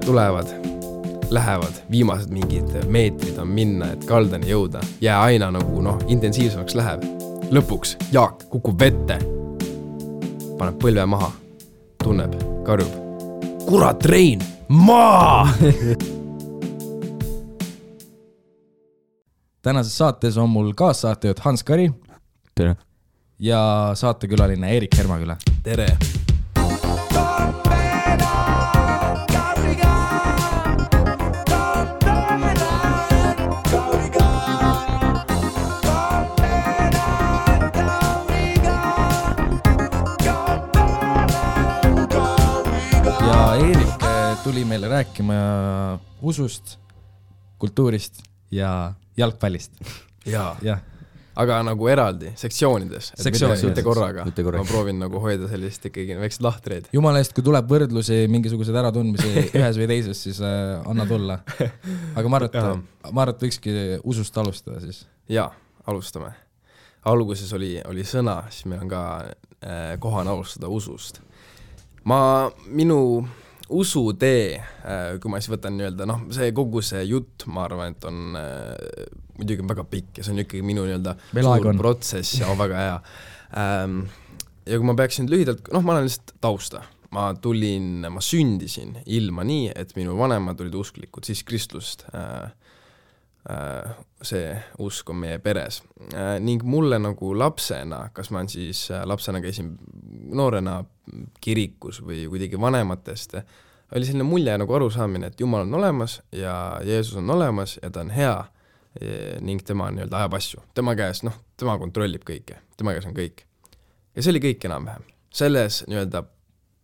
tulevad, lähevad, viimased mingid meetrid on minna, et kaldani jõuda. Jää aina nagu intensiivsemaks läheb. Lõpuks Jaak kukub vette, paneb põlve maha, tunneb, karjub. Kurat, Rein, maa! Tänases saates on mul kaassaatejuht Hans Kari. Tere. Ja saatekülaline Erik Hermaküla. Tere. Ja Erik tuli meile rääkima usust, kultuurist ja jalgpallist. Jaa. Aga nagu eraldi, sektsioonides. Mitte korraga. Ma proovin nagu hoida sellist ikkagi väiksed lahtreid. Jumala eest, kui tuleb võrdlusi, mingisugused äratundmisi ühes või teises, siis anna tulla. Aga ma arvan, et võikski usust alustada siis. Jaa, alustame. Alguses oli sõna, siis meil on ka kohane alustada usust. Minu usutee, kui ma siis võtan nii-öelda, see kogu see jutt, ma arvan, et on muidugi väga pikk ja see on ikkagi minu nii-öelda suur protsess ja väga hea. Ja kui ma peaksin lühidalt, ma olen lihtsalt tausta. Ma sündisin ilma nii, et minu vanemad olid usklikud, siis kristlust. See usk on meie peres. Ning mulle nagu lapsena, kas ma siis lapsena käisin noorena kirikus või kuidagi vanematest, oli selline mulje nagu arusaamine, et Jumal on olemas ja Jeesus on olemas ja ta on hea ning tema nii-öelda ajab asju. Tema käes, tema kontrollib kõike. Tema käes on kõik. Ja see oli kõik enam-vähem. Selles nii-öelda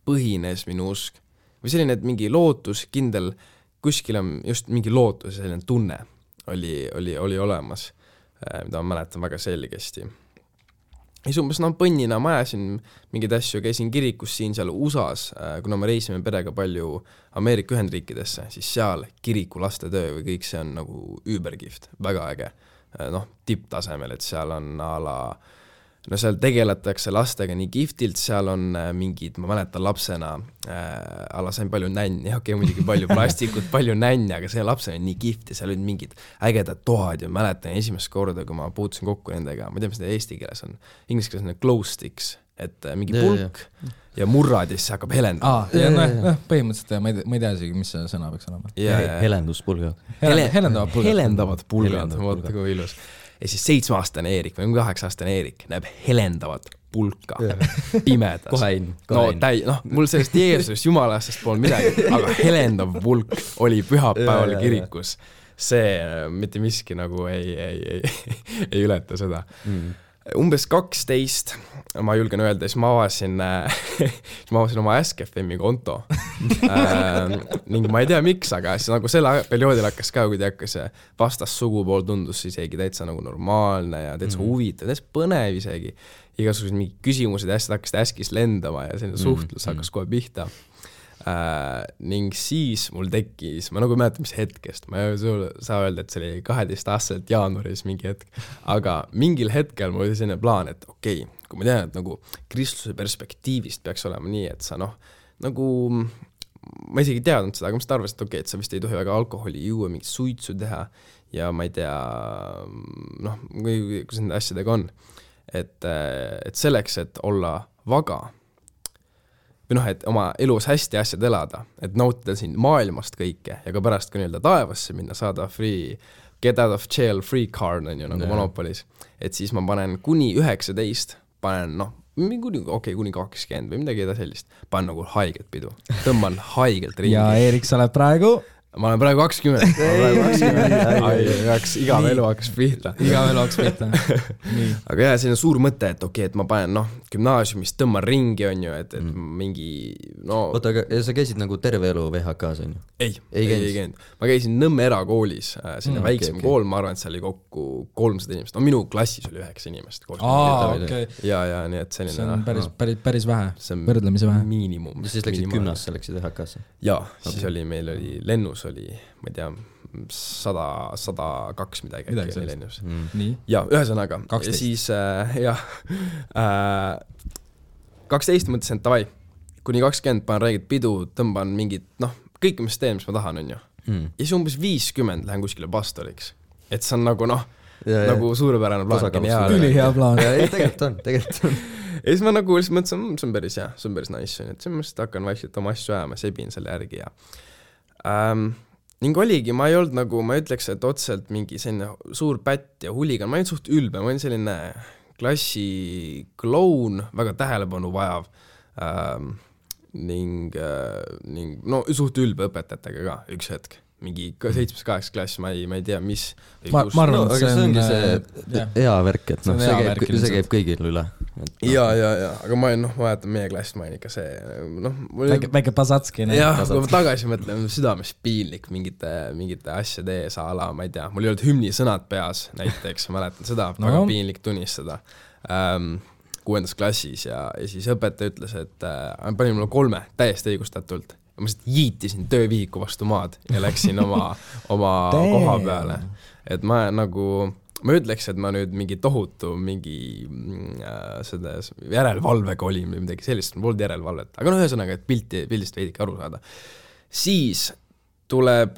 põhines minu usk. Või selline, et mingi lootus, kindel, kuskil on just mingi lootus ja selline tunne oli olemas, mida ma mäletan väga selgesti. Ja umbes põnnina ma ajasin mingid asju, käisin kirikus siin seal USAs, kuna me reisime perega palju Ameerika Ühendriikidesse, siis seal kiriku lastetöö või kõik see on nagu übergift, väga äge. Tipptasemel, et seal on seal tegeletakse lastega nii giftilt, seal on mingid, ma mäletan lapsena, sain palju nänni, muidugi palju plastikut, palju nänni, aga see lapsena on nii gift ja seal olid mingid ägedad toad ja mäletan esimest korda, kui ma puutusin kokku nendega, ma ei tea, mis need eesti keeles on, inglise keeles on glow sticks, et mingi pulk ja murrad ja siis hakkab helendama. Põhimõtteliselt ma ei tea isegi, mis see sõna peaks olema. Helenduspulgad. Helendavad pulgad, vaata kui ilus. Ja siis 7-aastane Eerik või 8-aastane Eerik näeb helendavat pulka pimedas. Kohe mul sellest Jeesusest, Jumalastest pool midagi, aga helendav pulk oli pühapäeval kirikus. See mitte miski nagu ei ületa seda. Umbes 12, ma julgen öelda, siis ma avasin oma Ask.fm-i konto. Ning ma ei tea miks, aga siis nagu selle perioodil hakkas ka, kui hakkas vastas sugupool tundus isegi täitsa nagu normaalne ja täitsa huvitav, täitsa põnev isegi. Igasugused mingi küsimused ja asjad hakkasid Askis lendama ja selline suhtlus hakkas kohe pihta. Ning siis mul tekkis, ma nagu mäletan mis hetkest, ma ei saa öelda, et see oli 12-aastaselt jaanuaris mingi hetk, aga mingil hetkel mul oli selline plaan, et okei, kui ma tean, et nagu kristluse perspektiivist peaks olema nii, et sa nagu, ma isegi teadnud seda, aga ma seda arvasin, et okei, et sa vist ei tohi väga alkoholi juua, mingit suitsu teha ja ma ei tea, kuidas nende asjadega on, et selleks, et olla vaga või et oma elus hästi asjad elada, et nautida siin maailmast kõike ja ka pärast ka nii-öelda taevasse minna, saada get out of jail free card on ju nagu Monopolis, et siis ma panen kuni 19, panen kuni 20 või midagi sellist, panen nagu haigelt pidu, tõmban haigelt ringi. Ja Eerik, sa oled praegu? Ma olen praegu 20. Igav elu hakkas pihta. Aga jah, see on suur mõte, et okei, et ma panen gümnaasiumist tõmban ringi on ju, et mingi Oota, aga sa käisid nagu terve elu VHK-s on ju? Ei käinud. Ma käisin Nõmme erakoolis, selline väiksem kool, ma arvan, et see oli kokku 300 inimest. Minu klassis oli 9 inimest. Ja nii et selline. See on päris vähe, võrdlemisi vähe. Miinimum. Ja siis läksid gümnasse, läksid VHK-sse? Jaa, siis meil oli lennus oli, ma ei tea, 102 midagi äkki lennus. Ja ühesõnaga. 12. Ja siis, 12 mõtlesin, et tavai, kuni 20 panen räigelt pidu, tõmban mingid, kõik, mis teen, mis ma tahan, on ju. Ja siis umbes 50 lähen kuskile pastoriks. Et see on nagu nagu suurepärane plaan. Ülihea plaan. Tegelikult on. Ja siis ma nagu lihtsalt mõtlesin, see on päris hea, see on päris nice, et siis ma lihtsalt hakkan vaikselt oma asju ajama, sebin selle järgi ja ning oligi, ma ei olnud nagu, ma ütleks, et otseselt mingi selline suur pätt ja huligan, ma olin suht ülbe, ma olin selline klassi kloun, väga tähelepanu vajav ning no suht ülbe õpetajatega ka üks hetk. Mingi 7-8 klass, ma ei tea, mis ma arvan, et see ongi see hea värk, et see käib kõigil üle. Ja, aga ma vaatan meie klassist, ma olin ikka see väike Pasatski. Jah, kui ma tagasi mõtlen, südames piinlik mingite asjade ees ala, ma ei tea, mul ei olnud hümni sõnad peas näiteks, mäletan seda, väga piinlik tunnistada 6. klassis ja siis õpetaja ütles, et pani mulle 3 täiesti õigustatult. Ma lihtsalt jiitisin töövihiku vastu maad ja läksin oma koha peale. Et ma ütleks, et ma nüüd mingi tohutu seda järelevalvega olin või midagi sellist, mul polnud järelevalvet. Aga ühesõnaga, et pildist veidike aru saada. Siis tuleb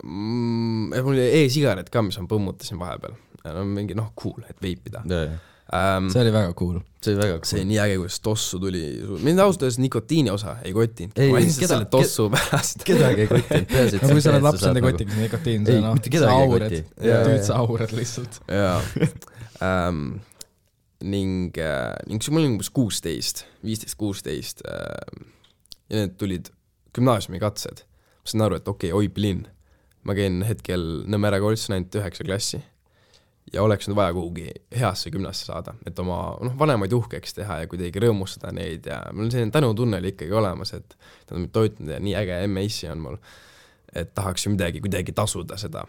mul oli e-sigaret ka, mis ma põmmutasin vahepeal. Mingi cool, et veipida. See oli väga cool. See oli nii äge, kuidas tossu tuli. Mind ausalt öeldes nikotiini osa ei kotinud. Ma lihtsalt selle tossu pärast. Kedagi ei kotinud. Kui sa oled laps, enda kotiks nikotiin, sa aurad. Tüüd sa aurad lihtsalt. Ning mul oli umbes 15-16 ja need tulid gümnaasiumi katsed. Ma sain aru, et okei, Oiplinn. Ma käin hetkel Nõmmere koolis ainult 9 klassi. Ja oleks nüüd vaja kuhugi heasse gümnasse saada, et oma vanemaid uhkeks teha ja kuidagi rõõmustada neid ja mul on selline tänutunne oli ikkagi olemas, et nad on mind toitnud ja nii äge MAC on mul, et tahaks ju midagi kuidagi tasuda seda.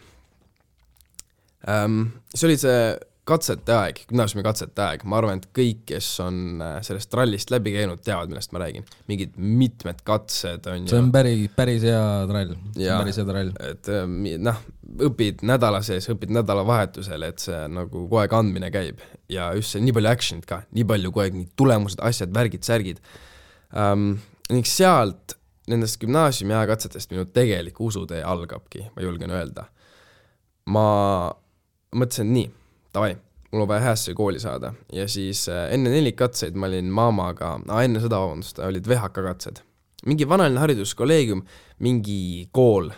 See oli see katsete aeg, gümnaasiumi katsete aeg, ma arvan, et kõik, kes on sellest rallist läbi käinud, teavad, millest ma räägin. Mingid mitmed katsed on see on päris hea trall. Et õpid nädala sees, õpid nädalavahetusel, et see nagu kogu aeg andmine käib ja just see nii palju actionit ka, nii palju kogu aeg nii tulemused, asjad, värgid, särgid. Ning sealt nendest gümnaasiumi ajakatsetest minu tegelik usutee algabki, ma julgen öelda. Ma mõtlesin nii, davai, mul on vaja häässe kooli saada ja siis enne 4 katseid ma olin maamaga, enne seda olid VHK katsed. Mingi vanaline hariduskolleegium, mingi kool,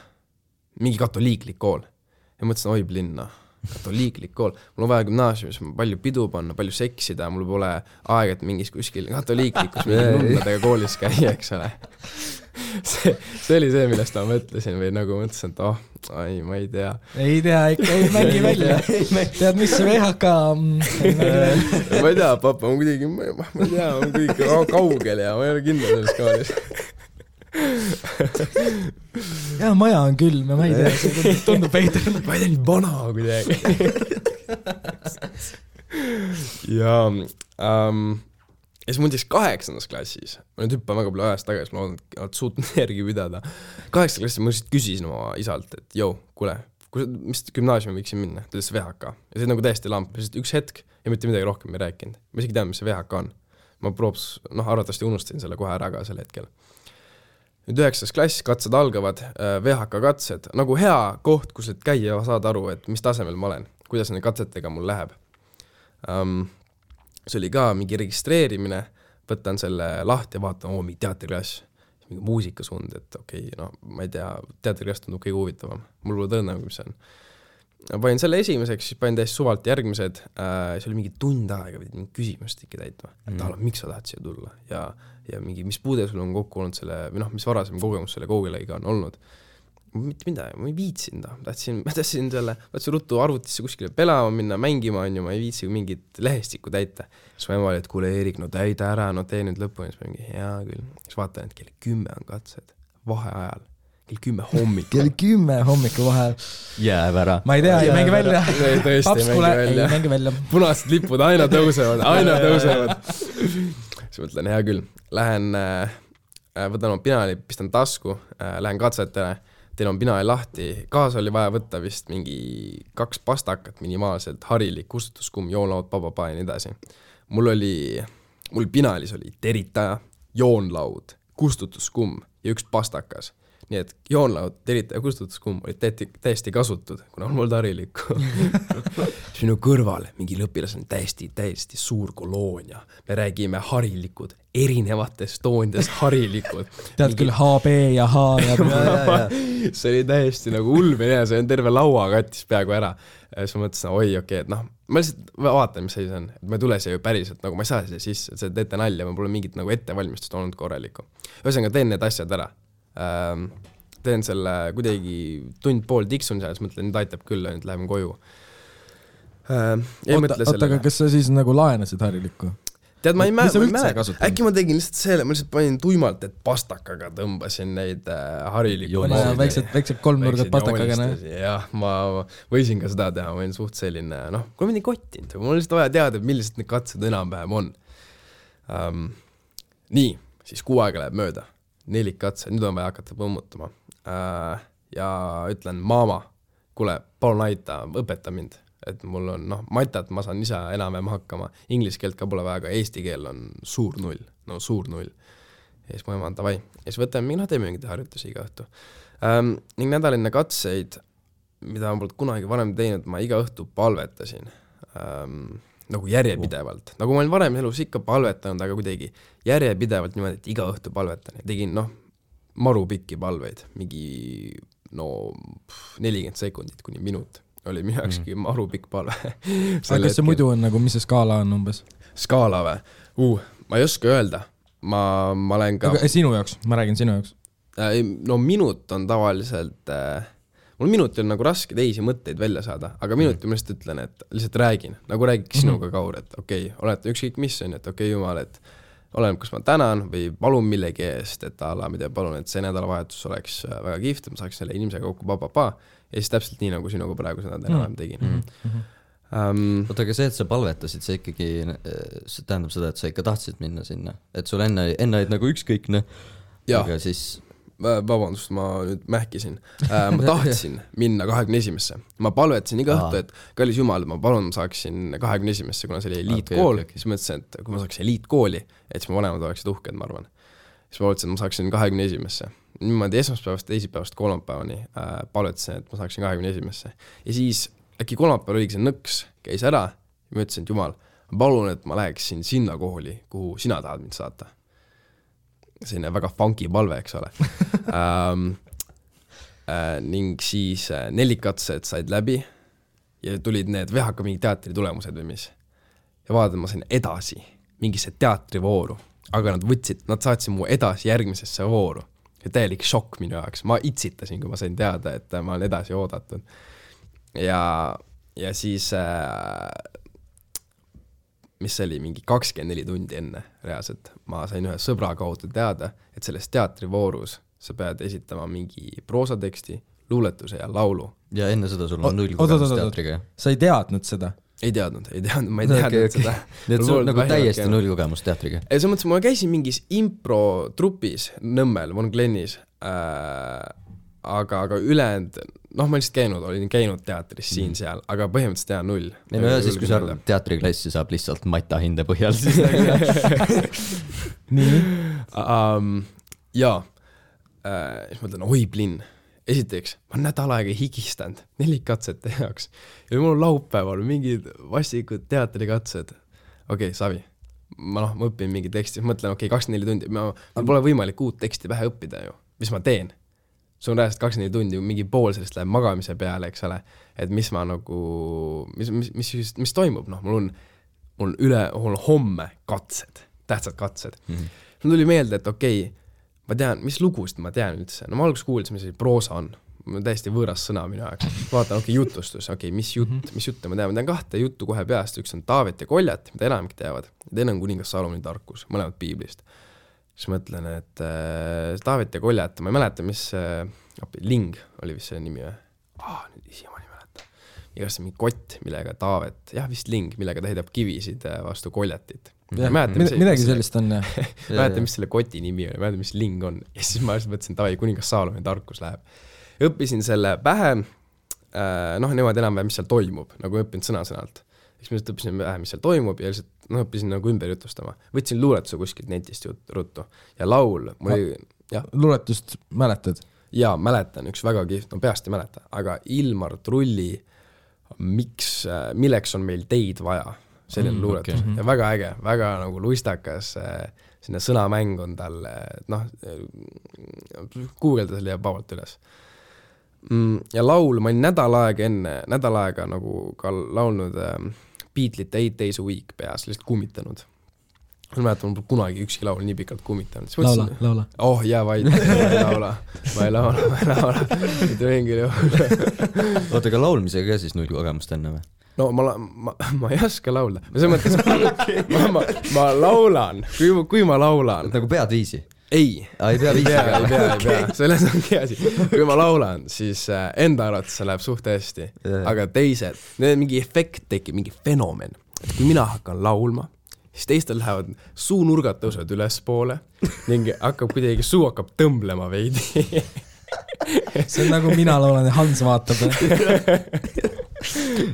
mingi katoliiklik kool. Ja mõtlesin, oi linna, katoliiklik kool. Mul on vaja gümnaasiumis palju pidu panna, palju seksida, mul pole aeg, et mingis kuskil katoliiklikus mingi nunnadega koolis käia, eks ole. See oli see, millest ma mõtlesin või nagu mõtlesin, et ma ei tea. Ei tea, ikka ei mängi välja. Tead, mis see VHK? Ma ei tea, papa, ma kuidagi, ma ei tea, ma kuidagi kaugel ja ma ei ole kindel selles koolis. Ja maja on külm ja ma ei tea, see tundub veider. Ma ei tea, nii vana kuidagi. Ja siis mul 8. klassis, ma nüüd hüppan väga palju ajast tagasi, ma loodan, et oled suutnud järgi pidada. 8. klassis ma lihtsalt küsisin oma isalt, et kuule, mis gümnaasiumi võiksin minna? Ta ütles VHK. Ja see nagu täiesti lamp, lihtsalt üks hetk ja mitte midagi rohkem ei rääkinud. Ma isegi tean, mis see VHK on. Ma arvatavasti unustasin selle kohe ära ka sel hetkel. Nüüd 9. klass, katsed algavad, VHK katsed, nagu hea koht, kus et käia ja saada aru, et mis tasemel ma olen, kuidas need katsetega mul läheb. See oli ka mingi registreerimine, võtan selle lahti ja vaatan, mingi teatriklass, mingi muusikasund, et okei, ma ei tea, teatriklass tundub kõige huvitavam. Mul pole tõenäo, mis see on. Panin selle esimeseks, siis panin täiesti suvalt järgmised, see oli mingi tund aega, võid mingi küsimust ikka täitma, et miks sa tahad siia tulla ja mingi, mis puude sul on kokku olnud selle, või mis varasem kogemus selle koogilagiga on olnud. Mitte midagi, ma ei viitsin ta, tahtsin ruttu arvutisse kuskile pelama minna, mängima on ju, ma ei viitsi mingit lehestikku täita. Siis ma ema oli, et kuule Eerik, täida ära, tee nüüd lõpuni, siis ma mingi hea küll. Siis vaatan, et kell 10 on katsed, vaheajal, kell 10 hommikul. Kell 10 hommikul vahel. Jääb ära. Ma ei tea, ei mängi välja. Tõesti, ei mängi välja. Punased lipud aina tõusevad. Siis mõtlen, hea küll, lähen, võtan oma pinali, pistan tasku, lähen katsetele, teil on pinali lahti, kaasa oli vaja võtta vist mingi 2 pastakat minimaalselt, harilik, kustutuskumm, joonlaud, papa ja nii edasi. Mul pinalis oli teritaja, joonlaud, kustutuskumm ja üks pastakas. Nii et joonlaud, terita ja kustutuskumm olid täiesti kasutud, kuna on mul harilikku. Minu kõrval mingi lõpilas on täiesti suur koloonia. Me räägime harilikud, erinevates toonides harilikud. Tead küll HB ja H ja see oli täiesti nagu ulme ja see on terve laua kattis peaaegu ära. Siis ma mõtlesin, oi, okei, et noh, ma lihtsalt vaatan, mis see on. Et ma ei tule siia ju päriselt, nagu ma ei saa siia sisse, see teete nalja, ma pole mingit nagu ettevalmistust olnud korralikku. Ühesõnaga, teen need asjad ära. Teen selle kuidagi tund-pool tiksun seal, siis mõtlen, nüüd aitab küll, nüüd läheme koju. Oota, aga kas sa siis nagu laenasid harilikku? Tead, ma ei mäleta. Äkki ma tegin lihtsalt selle, ma lihtsalt panin tuimalt, et pastakaga tõmbasin neid harilikku. Väiksed kolmnurgad pastakaga. Jah, ma võisin ka seda teha, ma olin suht selline, noh, kui ma nii kottinud, mul lihtsalt vaja teada, millised need katsed enam-vähem on. Nii, siis 6 aega läheb mööda. 4 katse, nüüd on vaja hakata põmmutama. Ja ütlen, maama, kuule, palun aita, õpeta mind. Et mul on, noh, matat ma saan ise enam-vähem hakkama. Inglise keelt ka pole väga, aga eesti keel on suur 0. No suur 0. Ja siis mu ema on tavai. Ja siis võtame, teeme mingid harjutusi iga õhtu. Ning nädaline katseid, mida ma polnud kunagi varem teinud, ma iga õhtu palvetasin. Nagu järjepidevalt. Nagu ma olin varem elus ikka palvetanud, aga kuidagi järjepidevalt niimoodi, et iga õhtu palvetan. Ja tegin, noh, maru pikki palveid. Mingi, 40 sekundit kuni minut. Oli minu jaokski maru pikk palve. Aga kas see muidu on nagu, mis see skaala on umbes? Skaala või? Ma ei oska öelda. Ma olen ka... Aga sinu jaoks, ma räägin sinu jaoks. No minut on tavaliselt... Mul minuti on nagu raske teisi mõtteid välja saada, aga minuti ma lihtsalt ütlen, et lihtsalt räägin. Nagu räägiks sinuga Kaur, et okei, olete ükskõik mis on, et okei, Jumal, et olen, kus ma tänan või palun millegi eest, et Allah, mida palun, et see nädalavahetus oleks väga kihvt, ma saaks selle inimesega kokku ja siis täpselt nii, nagu sinuga praegu seda enam tegin. Oota, aga see, et sa palvetasid, see ikkagi see tähendab seda, et sa ikka tahtsid minna sinna, et sul enne olid nagu ükskõikne, aga siis... Vabandust, ma nüüd mähkisin. Ma tahtsin minna 21. Ma palvetasin iga õhtu, et kallis Jumal, ma palun, ma saaksin 21. kuna see oli eliitkool, siis mõtlesin, et kui ma saaksin eliitkooli, et siis ma vanemad oleksid uhked, ma arvan. Siis ma mõtlesin, et ma saaksin 21. Niimoodi esmaspäevast, teisipäevast, kolmapäevani palvetasin, et ma saaksin 21. Ja siis äkki kolmapäeval oligi see nõks, käis ära ja ma ütlesin, et Jumal, ma palun, et ma läheksin sinna kooli, kuhu sina tahad mind saata. Selline väga funky palve, eks ole. Ning siis 4 katsed said läbi ja tulid need VHK mingi teatri tulemused või mis. Ja vaatan, ma sain edasi mingisse teatrivooru, aga nad saatsid mu edasi järgmisesse vooru. Ja täielik šokk minu jaoks. Ma itsitasin, kui ma sain teada, et ma olen edasi oodatud. Ja siis... mis oli mingi 24 tundi enne reaalselt. Ma sain ühe sõbra kaudu teada, et selles teatrivoorus sa pead esitama mingi proosateksti, luuletuse ja laulu. Ja enne seda sul on 0 kogemus teatriga. Sa ei teadnud seda? Ei teadnud, ma ei teadnud seda. Nii et sul nagu täiesti 0 kogemus teatriga? See mõttes, ma käisin mingis impro-trupis Nõmmel, Von Glennis, aga ülejäänud, noh, ma lihtsalt olin käinud teatris siin-seal, aga põhimõtteliselt teha 0. Ei no ja siis, kui sa teatriklassi saab lihtsalt mata hinde põhjal, siis nii? Jaa, siis ma ütlen, oi plinn. Esiteks, ma nädal aega higistanud 4 katsete jaoks. Ja mul on laupäeval mingid vastikud teatrikatsed. Okei, Savi. Ma õpin mingi teksti, mõtlen, 24 tundi. Mul pole võimalik uut teksti pähe õppida ju. Mis ma teen? See on rääst 24 tundi, mingi pool sellest läheb magamise peale, eks ole, et mis ma nagu, mis toimub, mul on homme katsed, tähtsad katsed. Mul tuli meelde, et okei, ma tean, mis lugust ma tean üldse, ma alguses kuulsin, mis proosa on, mul on täiesti võõras sõna minu jaoks, vaatan, jutustus, mis jutte ma tean 2 juttu kohe peast, üks on Taavet ja Koljat, mida enamik teavad, ja teine on kuningas Salomoni tarkus, mõlemad piiblist. Siis mõtlen, et Taavet ja Koljat, ma ei mäleta, mis Ling oli vist see nimi või? Nüüd isi ma ei mäleta. Igast mingi kott, millega Taavet, vist Ling, millega ta heidab kivisid vastu Koljatit. Midagi sellist on, jah. Mäleta, mis selle koti nimi oli, mäleta, mis Ling on. Ja siis ma mõtlesin, et kuningas Salomoni tarkus läheb. Õppisin selle pähe, niimoodi enam-vähem, mis seal toimub, nagu õppinud sõna-sõnalt. Siis ma õppisin vähe, mis seal toimub ja lihtsalt õppisin nagu ümber jutustama. Võtsin luuletuse kuskilt netist ruttu ja laul, luuletust mäletad? Jaa, mäletan, üks väga kihvt, no peast ei mäleta, aga Ilmar Trulli milleks on meil teid vaja, selline luuletus okay. Ja väga äge, väga nagu luistakas, sinna sõnamäng on tal, noh, guugelda selle ja pavalt üles. Ja laul, ma olin nädal aega nagu ka laulnud Beatlesite 8 Days a Week peas, lihtsalt kummitanud. Ma mäletan, mul kunagi ükski laul nii pikalt kummitanud. Laula. Oh, jää vaid, ma ei laula. Mitte mingil juhul. Oota, aga laulmisega ka siis null kogemust enne või? No ma ei oska laulda. See mõttes, ma laulan, kui ma laulan. Nagu pead viisi? Ei pea viisi. Ei pea. Selles ongi asi. Kui ma laulan, siis enda arvates see läheb suht hästi. Aga teised, mingi efekt tekib, mingi fenomen. Et kui mina hakkan laulma, siis teistel lähevad suunurgad tõusevad üles poole ning kuidagi suu hakkab tõmblema veidi. See on nagu mina laulan ja Hans vaatab.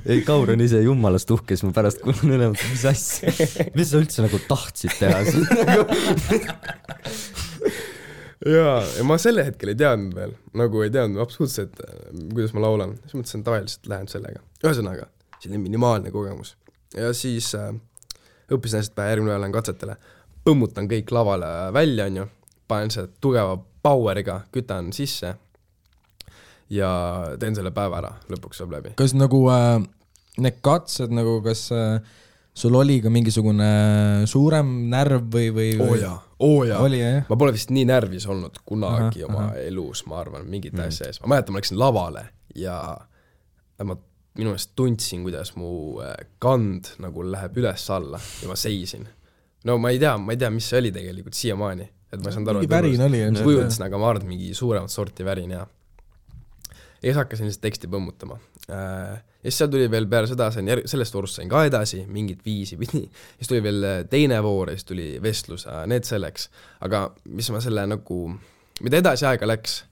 Ei, Kaur on ise jummalast uhke, siis ma pärast kuulen üle, mis asja, mis sa üldse nagu tahtsid teha. ja ma selle hetkel ei teadnud veel, nagu ei teadnud absoluutselt, kuidas ma laulan. Siis mõtlesin, tavaliselt lähen sellega. Ühesõnaga, selline minimaalne kogemus. Ja siis õppisin hästi pähe, järgmine lähen katsetele, põmmutan kõik lavale välja, panen see tugeva poweriga, kütan sisse ja teen selle päeva ära, lõpuks saab läbi. Kas nagu need katsed, nagu kas sul oli ka mingisugune suurem närv või? Oo jaa. Oli, jah? Ma pole vist nii närvis olnud kunagi oma elus, ma arvan, mingit asja ees. Ma mäletan, ma läksin lavale ja ma minu meelest tundsin, kuidas mu kand nagu läheb üles alla ja ma seisin. No ma ei tea, mis see oli tegelikult siiamaani. Et ma ei saanud aru, mingi värin oli. Kujutasin, aga ma arvan, mingi suuremat sorti värin, ja siis hakkasin lihtsalt teksti põmmutama. Ja siis seal tuli veel peale seda, sellest voorust sain ka edasi, mingit viisi pidi. Siis tuli veel teine voor ja siis tuli vestlus, need selleks. Aga mis ma selle nagu, mida edasi aega läks,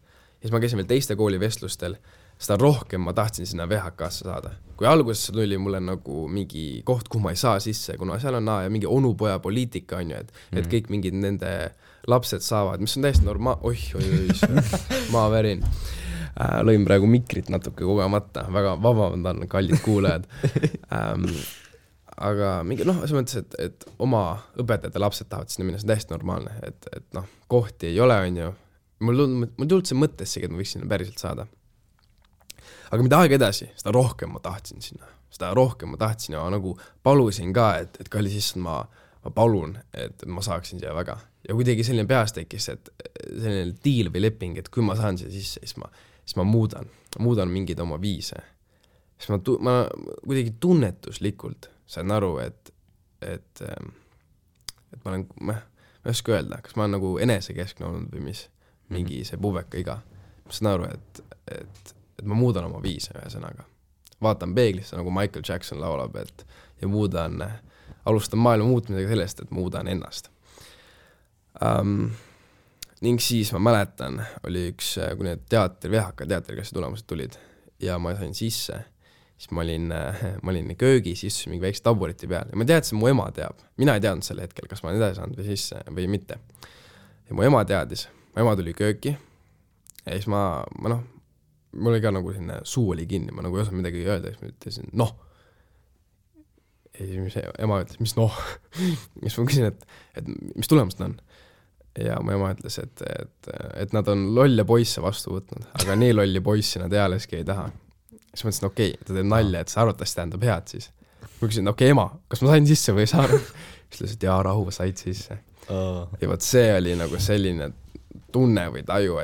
siis ma käisin veel teiste kooli vestlustel, seda rohkem ma tahtsin sinna VHK-sse saada. Kui alguses tuli mulle nagu mingi koht, kuhu ma ei saa sisse, kuna seal on ja mingi onupoja poliitika on ju, et kõik mingid nende lapsed saavad, mis on täiesti ma värin. Lõin praegu mikrit natuke kogemata, väga vabandan, kallid kuulajad. Aga mingi, see mõttes, et oma õpetajate lapsed tahavad sinna minna, see on täiesti normaalne, et kohti ei ole, on ju. Mul tulnud see mõttessegi, et ma võiks sinna päriselt saada. Aga mida aega edasi, seda rohkem ma tahtsin sinna. Seda rohkem ma tahtsin ja nagu palusin ka, et kalli sisse ma palun, et ma saaksin siia väga. Ja kuidagi selline peas tekkis, et selline deal või leping, et kui ma saan siia sisse, siis ma muudan mingeid oma viise. Siis ma kuidagi tunnetuslikult sain aru, et ma olen, ma ei oska öelda, kas ma olen nagu enesekeskne olnud või mis, mingi see puveka iga. Ma saan aru, et ma muudan oma viise ühesõnaga. Vaatan peeglisse, nagu Michael Jackson laulab, ja alustan maailma muutmisega sellest, et muudan ennast. Ning siis ma mäletan, oli üks, kui need VHK teatriklassi tulemused tulid ja ma sain sisse, siis ma olin köögis, istusin mingi väikse taburiti peal ja ma teadsin, mu ema teab. Mina ei teadnud selle hetkel, kas ma olen edasi saanud või sisse või mitte. Ja mu ema teadis, mu ema tuli kööki ja siis mul oli ka nagu selline suu oli kinni, ma nagu ei osanud midagi öelda, siis ma ütlesin, Ja siis ema ütles, mis siis ma küsin, et mis tulemused on? Ja mu ema ütles, et nad on lolle poisse vastu võtnud, aga nii lolli poissi nad ealeski ei taha. Siis ma ütlesin, okei, ta teeb nalja, et see arvatavasti tähendab head siis. Ma küsin, okei, ema, kas ma sain sisse või ei saanud? Siis ütles, et jaa, rahu, said sisse. Ja võt see oli nagu selline tunne või taju,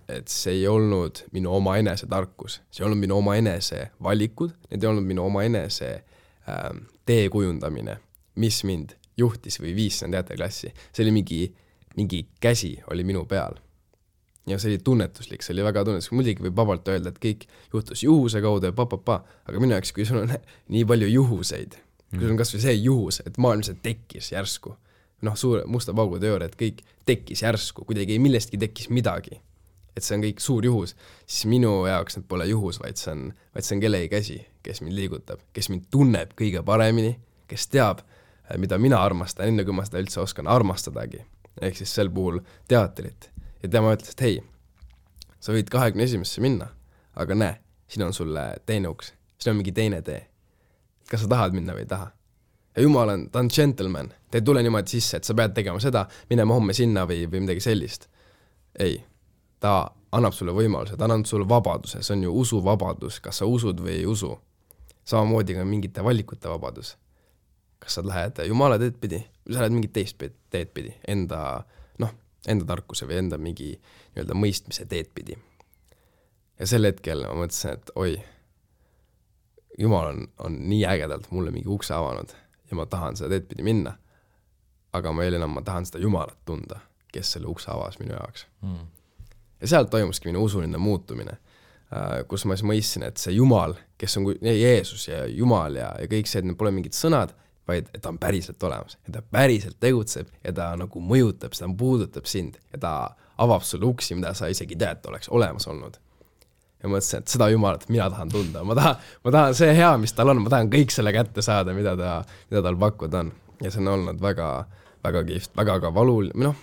et see ei olnud minu oma enese tarkus, see ei olnud minu oma enese valikud, need ei olnud minu oma enese tee kujundamine, mis mind juhtis või viis sinna teatriklassi. See oli mingi käsi oli minu peal. Ja see oli tunnetuslik, see oli väga tunnetuslik. Muidugi võib vabalt öelda, et kõik juhtus juhuse kaudu ja aga minu jaoks, kui sul on nii palju juhuseid, kui sul on kas või see juhus, et maailm see tekkis järsku, suure musta paugu teooria, et kõik tekkis järsku, kuidagi millestki tekkis midagi, et see on kõik suur juhus, siis minu jaoks need pole juhus, vaid see on kellegi käsi, kes mind liigutab, kes mind tunneb kõige paremini, kes teab, mida mina armastan, enne kui ma seda üldse oskan armastadagi, ehk siis sel puhul teatrit. ja tema ütles, et hei, sa võid 21. minna, aga näe, siin on sulle teine uks, siin on mingi teine tee. Kas sa tahad minna või ei taha? Ja Jumal ta on gentleman, ta ei tule niimoodi sisse, et sa pead tegema seda, minema homme sinna või midagi sellist. Ei, ta annab sulle võimaluse, ta annab sulle vabaduse, see on ju usuvabadus, kas sa usud või ei usu. Samamoodi ka mingite valikute vabadus. Kas sa lähed Jumala teed pidi, või sa lähed mingit teist teed pidi, enda tarkuse või enda mingi nii-öelda mõistmise teed pidi. Ja sel hetkel ma mõtlesin, et oi, Jumal on nii ägedalt mulle mingi ukse avanud ja ma tahan seda teed pidi minna, aga ma tahan seda Jumalat tunda, kes selle ukse avas minu jaoks. Ja sealt toimuski minu usuline muutumine, kus ma siis mõistsin, et see Jumal, kes on Jeesus ja Jumal ja kõik see, et need pole mingid sõnad, vaid et ta on päriselt olemas, et ta päriselt tegutseb ja ta nagu mõjutab, ta puudutab sind ja ta avab sulle uksi, mida sa isegi tead, oleks olemas olnud. Ja mõtlesin, et seda Jumalat mina tahan tunda, ma tahan see hea, mis tal on, ma tahan kõik selle kätte saada, mida tal pakkuda on. Ja see on olnud väga, väga kihvt, väga ka valuline,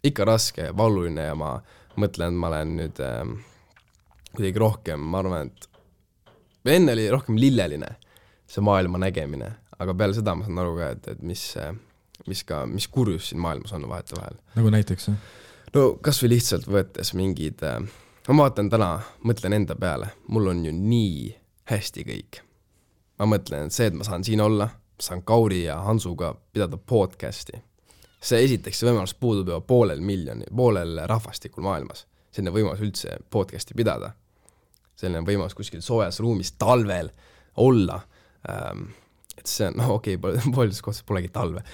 ikka raske ja valuline ja ma mõtlen, et ma olen nüüd kuidagi rohkem, ma arvan, et enne oli rohkem lilleline see maailma nägemine, aga peale seda ma saan aru ka, et mis kurjus siin maailmas on vahetevahel. Nagu näiteks? No kas või lihtsalt võttes mingid, ma vaatan täna, mõtlen enda peale, mul on ju nii hästi kõik. Ma mõtlen, et see, et ma saan siin olla, saan Kauri ja Hansuga pidada podcasti. See esiteks see võimalus puudub juba poolel rahvastikul maailmas. Selline võimalus üldse podcasti pidada. Selline võimalus kuskil soojas ruumis talvel olla. Et see on, pooldes kohtas polegi talve.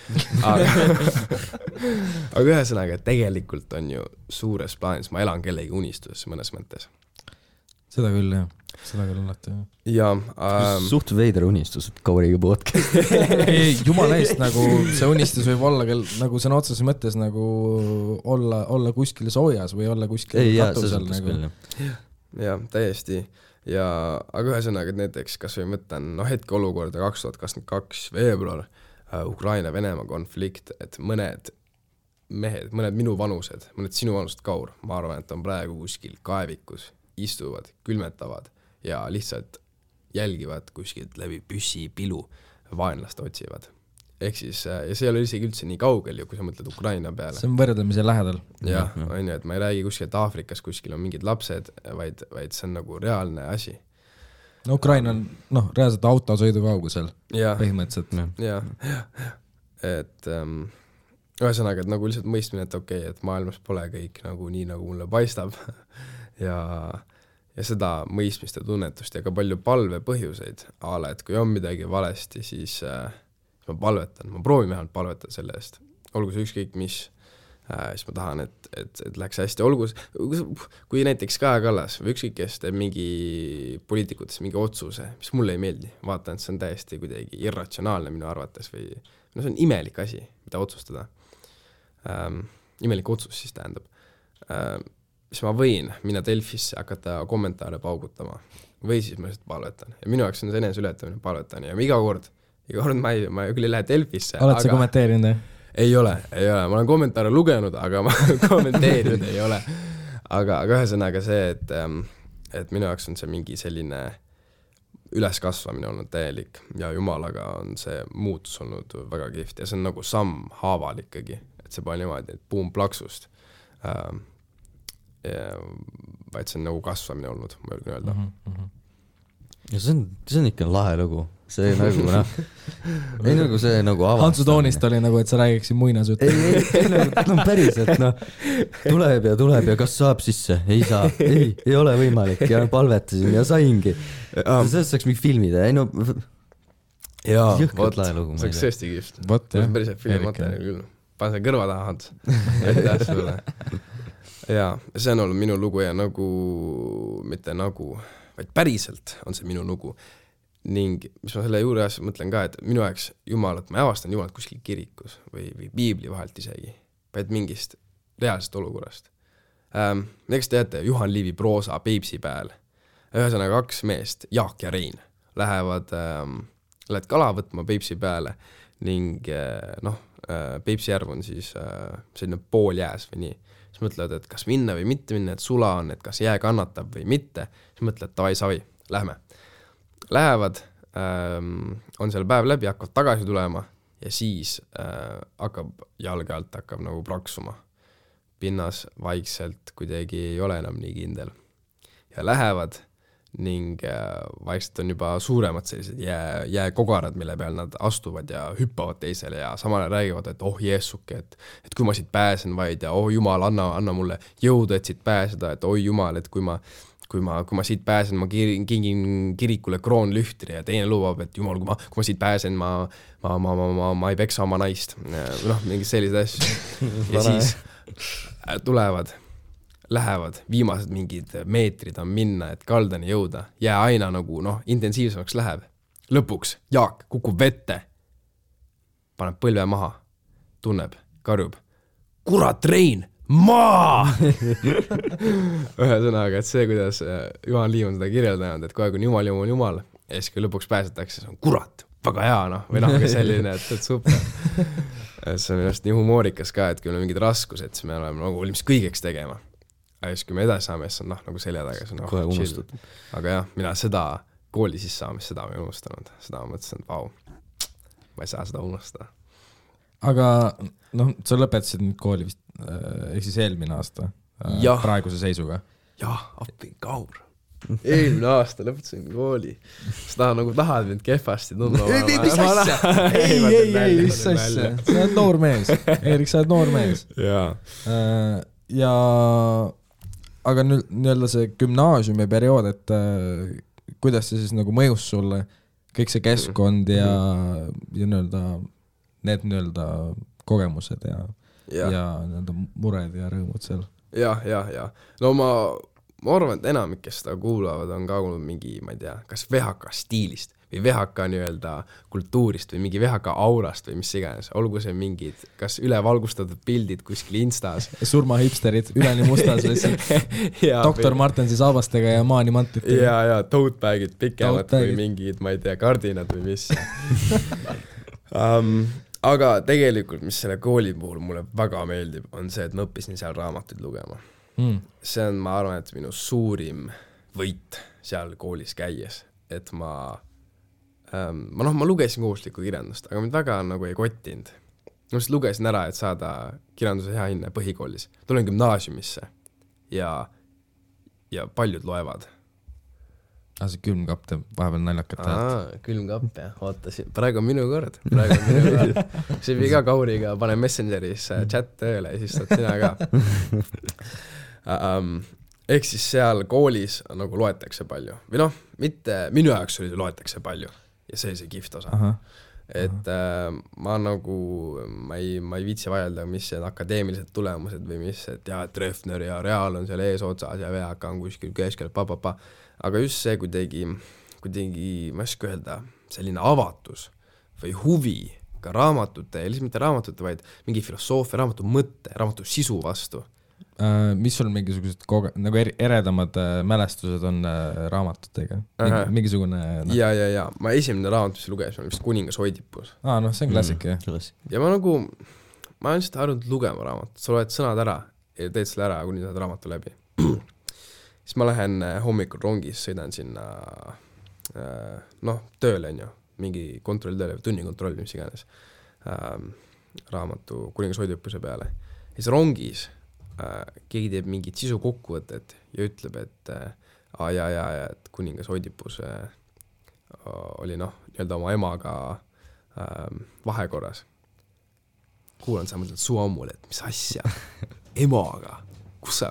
Aga ühesõnaga, tegelikult on ju suures plaanis, ma elan kellegi unistuses mõnes mõttes. Seda küll, jah. Seda küll alati, jah. Ja, suht veider unistus, et Kauriga podcast. Ei, jumala eest, nagu see unistus võib olla nagu sõna otseses mõttes nagu olla kuskil soojas või olla kuskil katusel. Nagu. Ja, täiesti. Aga ühesõnaga, et näiteks, kas või mõtlen, hetke olukorda 2022 veebruar, Ukraina-Venemaa konflikt, et mõned mehed, mõned minu vanused, mõned sinu vanused Kaur, ma arvan, et on praegu kuskil kaevikus, istuvad, külmetavad ja lihtsalt jälgivad kuskilt läbi püssi, pilu, vaenlast otsivad. Ehk siis, ja see ei ole isegi üldse nii kaugel, kui sa mõtled Ukraina peale. See on võrdlemise lähedal. Jah, on ju, et ma ei räägi kuskilt Aafrikas, kuskil on mingid lapsed, vaid see on nagu reaalne asi. No Ukraina on, reaalselt autosõidu kaugusel, põhimõtteliselt. Jah. Et ühesõnaga, et nagu lihtsalt mõistmine, et okei, et maailmas pole kõik nagu nii, nagu mulle paistab ja seda mõistmist ja tunnetust ja ka palju palve põhjuseid, et kui on midagi valesti, siis ma palvetan, ma proovin vähemalt palvetada selle eest, olgu see ükskõik mis, siis ma tahan, et läheks hästi, olgu, kui näiteks Kaja Kallas või ükskõik kes teeb mingi poliitikutes mingi otsuse, mis mulle ei meeldi, vaatan, et see on täiesti kuidagi irratsionaalne minu arvates või see on imelik asi, mida otsustada. Imelik otsus siis tähendab. Siis ma võin minna Delfisse hakata kommentaare paugutama või siis ma lihtsalt palvetan. Ja minu jaoks on see enese ületamine palvetan ja iga kord ma küll ei lähe Delfisse. Oled sa kommenteerinud? Ei ole. Ma olen kommentaare lugenud, aga ma kommenteerinud ei ole. Aga ühesõnaga see, et minu jaoks on see mingi selline üleskasvamine olnud täielik ja Jumalaga on see muutus olnud väga kihvt ja see on nagu samm haaval ikkagi, et see pole niimoodi, et buum plaksust, vaid see on nagu kasvamine olnud, ma julgen öelda. Ja see on ikka lahe lugu. See nagu, ei nagu see nagu avastamine. Hansu toonist oli nagu, et sa räägiksid muinasjutte. Ei, päriselt, tuleb ja kas saab sisse? Ei saa, ei ole võimalik ja vpalvetasin ja saingi. Sellest saaks mingi filmida, ei no... Jaa, jõhkad lahe lugu. See oleks tõesti kihvt. See on päriselt filmimaterjal küll. Pane see kõrva taha, Hans. Aitäh sulle. Jaa, see on olnud minu lugu ja nagu, mitte nagu, vaid päriselt on see minu lugu. Ning mis ma selle juures mõtlen ka, et minu aeg Jumalat, ma avastan Jumalat kuskil kirikus või piibli vahelt isegi, vaid mingist reaalsest olukorrast. Näiteks teate, Juhan Liivi proosa Peipsi pääl. Ühesõnaga 2 meest, Jaak ja Rein, lähevad kala võtma Peipsi pääle ning Peipsi järv on siis selline pool jääs või nii. siis mõtlevad, et kas minna või mitte minna, et sula on, et kas jää kannatab või mitte, siis mõtlevad, davai, savi, lähme. Lähevad, on seal päev läbi, hakkavad tagasi tulema ja siis hakkab jalge alt hakkab nagu praksuma. Pinnas vaikselt kuidagi ei ole enam nii kindel. Ja lähevad ning vaikselt on juba suuremad sellised jääkogarad, mille peal nad astuvad ja hüppavad teisele ja samale räägivad, et oh jeesuke, et kui ma siit pääsen vaid ja oh jumal, anna mulle jõudu, et siit pääseda, et oi jumal, et kui ma siit pääsen, ma kingin kirikule kroonlühtri ja teine lubab, et jumal, kui ma siit pääsen, ma ei peksa oma naist. Noh, mingid sellised asju. Ja siis tulevad, lähevad, viimased mingid meetrid on minna, et kaldani jõuda. Jää aina nagu, intensiivsemaks läheb. Lõpuks Jaak kukub vette, paneb põlve maha, tunneb, karjub. Kurat, Rein! Maa! Ühesõnaga, et see, kuidas Juhan Liiv on seda kirjeldanud, et kogu aeg on jumal, ja siis kui lõpuks pääsetakse, see on kurat, väga hea, või ka selline, et super. See on just nii humoorikas ka, et kui meil on mingid raskused, siis me oleme nagu valmis kõigeks tegema. Aga siis kui me edasi saame, siis on nagu selja taga, see on kohe unustad. Aga jah, mina seda kooli sisse saamist, seda ma ei unustanud. Seda ma mõtlesin, et vau, ma ei saa seda unustada. Aga sa lõpetasid nüüd kooli vist ehk siis eelmine aasta praeguse seisuga. Jah, appi kaur. Eelmine aasta lõpetasin kooli. Sa tahad mind kehvasti tundma. Mis asja? Ei, mis asja? Sa oled noor mees. Eerik, sa oled noor mees. Ja aga nüüd see gümnaasiumi periood, et kuidas see siis nagu mõjus sulle kõik see keskkond ja need kogemused ja mured ja rõõmud seal. Ja. No ma arvan, et enamik, kes seda kuulavad, on ka kuulnud mingi, ma ei tea, kas VHK stiilist või VHK kultuurist või mingi VHK aurast või mis iganes. Olgu see mingid, kas ülevalgustatud pildid kuskil Instas. Surmahipsterid, üleni mustas lihtsalt. Doktor Martensi saabastega ja maanimantid. Ja tote-bagid pikemad või mingid, ma ei tea, kardinad või mis. Aga tegelikult, mis selle kooli puhul mulle väga meeldib, on see, et ma õppisin seal raamatuid lugema. See on, ma arvan, et minu suurim võit seal koolis käies, et ma lugesin kohustuslikku kirjandust, aga mind väga nagu ei kottinud. Ma just lugesin ära, et saada kirjanduse hea hinne põhikoolis. Tulen gümnaasiumisse ja paljud loevad. See külmkapp teeb vahepeal naljakat häält. Külmkapp, jah. Ootasin. Praegu on minu kord. See viga Kauriga, pane Messengeris chat tööle ja siis saad sina ka. Ehk siis seal koolis nagu loetakse palju. Või mitte, minu jaoks oli loetakse palju. Ja see oli see kihvt osa. Et ma ei viitsi vaielda, mis see akadeemilised tulemused või mis, et Treffner ja Real on seal ees otsas ja VHK on kuskil keskel, aga just see kuidagi, ma ei oska öelda, selline avatus või huvi ka raamatute, ja lihtsalt mitte raamatute, vaid mingi filosoofia, raamatu mõtte, raamatu sisu vastu. Mis sul mingisugused nagu eredamad mälestused on raamatutega? Mingisugune... Ja. Ma esimene raamat, mis luges, on vist Kuningas Oidipus. See on klassik, jah. Ja ma olen lihtsalt harjunud lugema raamatut. Sa loed sõnad ära ja teed selle ära, kuni saad raamatu läbi. Siis ma lähen hommikul rongis, sõidan sinna tööle, mingi kontroll tööle, tunnikontroll, mis iganes raamatu Kuningas Oidipuse peale. Ja siis rongis keegi teeb mingid sisu kokkuvõtted ja ütleb, et et Kuningas Oidipus oli nii-öelda oma emaga vahekorras. Kuulan sa mõtled suu ammul, et mis asja? Emaga? Kus sa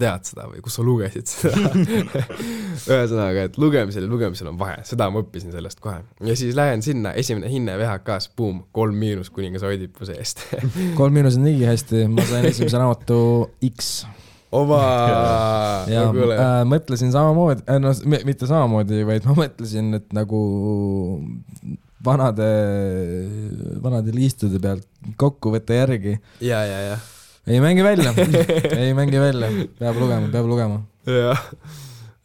tead seda või kus sa lugesid seda? Ühesõnaga, et lugemisel on vahe. Seda ma õppisin sellest kohe. Ja siis lähen sinna, esimene hinne VHK-s, 3- Kuningas Oidipuse eest. 3- on nii hästi, ma sain esimese raamatu X. Mõtlesin samamoodi, mitte samamoodi, vaid ma mõtlesin, et nagu vanade liistude pealt kokkuvõtte järgi. Ja. Ei mängi välja, peab lugema.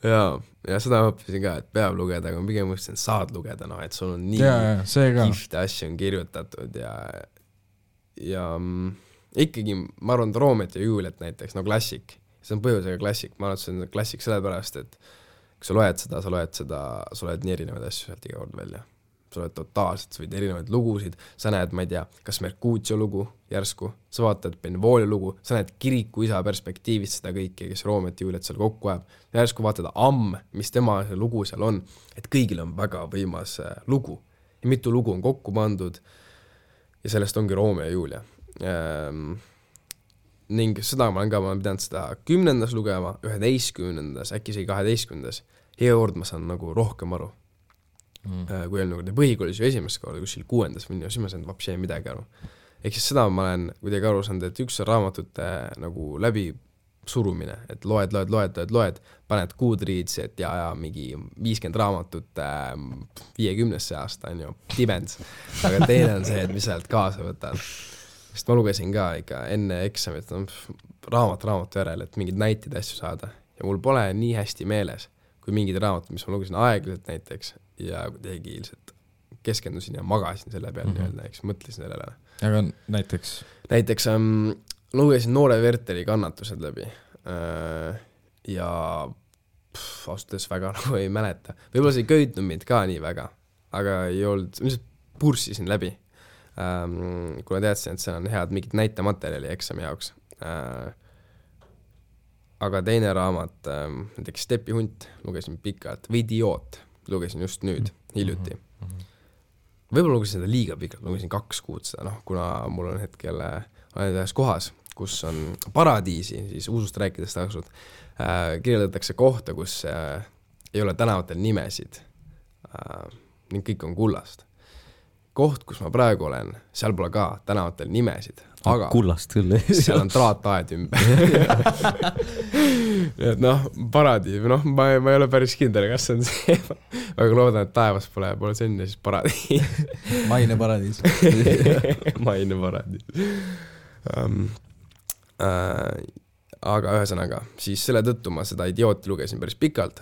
Ja seda ma õppisin ka, et peab lugeda, aga ma pigem mõtlesin, saad lugeda, et sul on nii kihvte asju on kirjutatud ja ikkagi ma arvan, Romeo ja Juliet näiteks, no klassik, see on põhjusega klassik, ma arvan, et see on klassik sellepärast, et kui sa loed seda, sa loed nii erinevaid asju sealt iga kord välja. Sa loed totaalselt, sa võid erinevaid lugusid, sa näed, ma ei tea, kas Mercutio lugu järsku, sa vaatad Benvolio lugu, sa näed kiriku isa perspektiivist seda kõike, kes Romeo ja Juliet seal kokku ajab, järsku vaatad mis tema lugu seal on, et kõigil on väga võimas lugu ja mitu lugu on kokku pandud ja sellest ongi Romeo ja Julia. Ning seda ma olen pidanud seda 10. lugema, 11. äkki isegi 12. Hea kord ma saan nagu rohkem aru. Kui on nagu põhikoolis ju esimest korda kuskil 6. või siis ma saan vapsi midagi aru. Ehk siis seda ma olen kuidagi aru saanud, et üks on raamatute nagu läbi surumine, et loed, paned Goodreads, et ja mingi 50 raamatut 50. aasta on ju, tibens. Aga teine on see, et mis sealt kaasa võtad. Sest ma lugesin ka ikka enne eksamit raamatu järel, et mingid näitid asju saada. Ja mul pole nii hästi meeles, kui mingid raamatud, mis ma lugesin aeglaselt näiteks, ja kuidagi ilmselt keskendusin ja magasin selle peal nii-öelda, eks mõtlesin sellele. Aga näiteks? Näiteks lugesin Noore Werteri Kannatused läbi ja austes väga nagu ei mäleta. Võib-olla see ei köitnud mind ka nii väga, aga ei olnud, lihtsalt purssisin läbi, kuna teadsin, et see on head mingit näitematerjali eksami jaoks. Aga teine raamat, näiteks Stepi hunt, lugesin pikalt, või Idioot, lugesin just nüüd, hiljuti. Võib-olla lugesin seda liiga pikalt, lugesin 2 kuud seda, kuna mul on hetkel olen ühes kohas, kus on paradiisi, siis usust rääkides taksud, kirjeldatakse kohta, kus ei ole tänavatel nimesid ning kõik on kullast. Koht, kus ma praegu olen, seal pole ka tänavatel nimesid, aga kullast küll, seal on traataed ümber. Et paradiis, ma ei ole päris kindel, kas see on see, väga loodan, et taevas pole senne, siis paradiis. Maine paradiis. Maine paradiis. Aga ühesõnaga, siis selle tõttu ma seda Idiooti lugesin päris pikalt,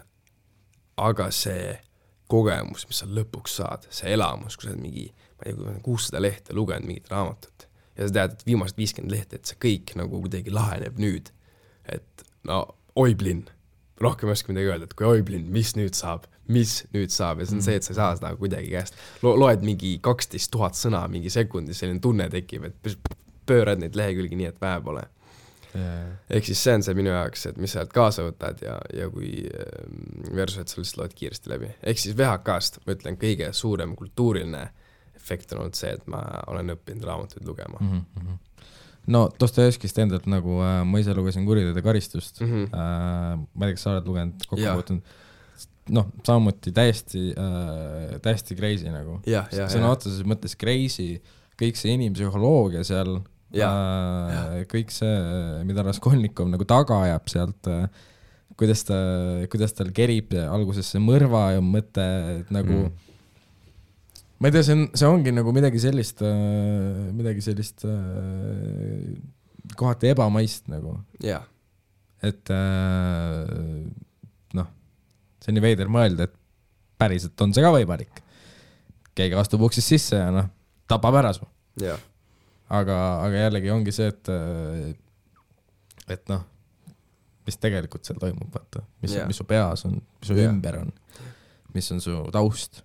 aga see kogemus, mis sa lõpuks saad, see elamus, kui sa mingi, ma ei tea, 600 lehte lugenud mingit raamatut ja sa tead, et viimased 50 lehte, et see kõik nagu kuidagi laheneb nüüd, et oiblinn, rohkem ei oska midagi öelda, et kui oiblinn, mis nüüd saab ja see on see, et sa ei saa seda kuidagi käest, loed mingi 12 000 sõna mingi sekundi, selline tunne tekib, et pöörad neid lehekülgi nii, et vähe pole. Ehk siis see on see minu jaoks, et mis sa kaasa võtad ja kui versus, et sa lihtsalt loed kiiresti läbi. Ehk siis VHK-st, ma ütlen, kõige suurem kultuuriline efekt on olnud see, et ma olen õppinud raamatuid lugema. No Dostojevskist endalt nagu ma ise lugesin Kuriteod ja karistust. Ma ei tea, kas sa oled lugenud kokkupuutunud. Samamoodi täiesti crazy nagu. Sõna otseses mõttes crazy, kõik see inimpsühholoogia seal, kõik see, mida Raskolnikov nagu taga ajab sealt, kuidas tal kerib alguses see mõrva ja mõte, et nagu ma ei tea, see ongi nagu midagi sellist kohati ebamaist nagu. Et see on nii veider mõelda, et päriselt on see ka võimalik. Keegi astub uksist sisse ja tapab ära su. Aga jällegi ongi see, et mis tegelikult seal toimub, vaata, mis su peas on, mis su ümber on, mis on su taust,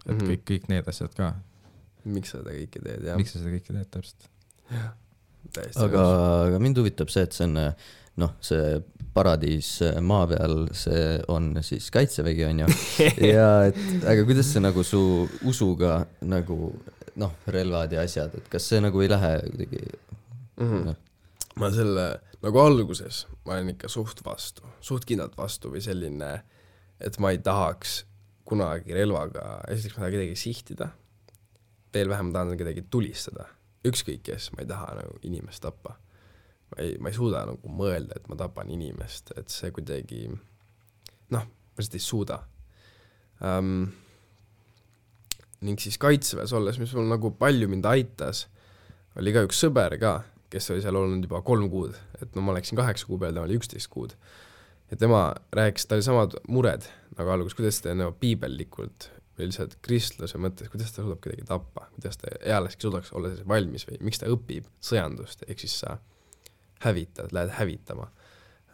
et kõik need asjad ka. Miks sa seda kõike teed, jah. Miks sa seda kõike teed, täpselt. Aga mind huvitab see, et see on, see paradiis maa peal, see on siis kaitsevägi, on ju. Ja aga kuidas see nagu su usuga nagu relvad ja asjad, et kas see nagu ei lähe kuidagi? Ma selle, nagu alguses ma olen ikka suht kindlalt vastu või selline, et ma ei tahaks kunagi relvaga, esiteks ma tahan kedagi sihtida, veel vähem ma tahan kedagi tulistada, ükskõik kes, ma ei taha nagu inimest tappa. Ma ei suuda nagu mõelda, et ma tapan inimest, et see kuidagi, ma lihtsalt ei suuda. Ning siis kaitseväes olles, mis mul nagu palju mind aitas, oli ka üks sõber ka, kes oli seal olnud juba 3 kuud, et ma läksin 8 kuu peal, ta oli 11 kuud. Ja tema rääkis, ta oli samad mured nagu alguses, kuidas ta piibellikult või lihtsalt kristluse mõttes, kuidas ta suudab kedagi tappa, kuidas ta ealeski suudaks olla valmis või miks ta õpib sõjandust, ehk siis sa hävitad, lähed hävitama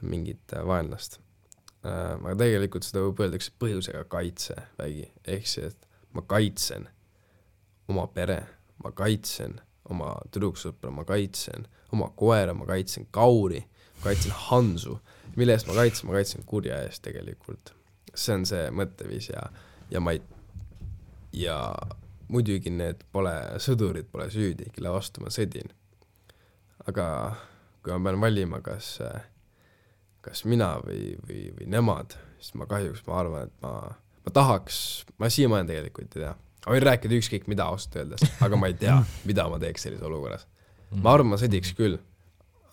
mingit vaenlast. Aga tegelikult seda võib öeldakse põhjusega kaitsevägi, ehk see, et ma kaitsen oma pere, ma kaitsen oma tüdruksõpra, ma kaitsen oma koera, ma kaitsen kauri, ma kaitsen Hansu, mille eest ma kaitsen kurja eest tegelikult. See on see mõtteviis ja muidugi need sõdurid pole süüdi, kelle vastu ma sõdin. Aga kui ma pean valima, kas mina või nemad, siis ma arvan, et ma tahaks, ma siiamaani tegelikult ei tea. Ma võin rääkida ükskõik mida ausalt öeldes, aga ma ei tea, mida ma teeks sellises olukorras. Ma arvan, ma sõdiks küll,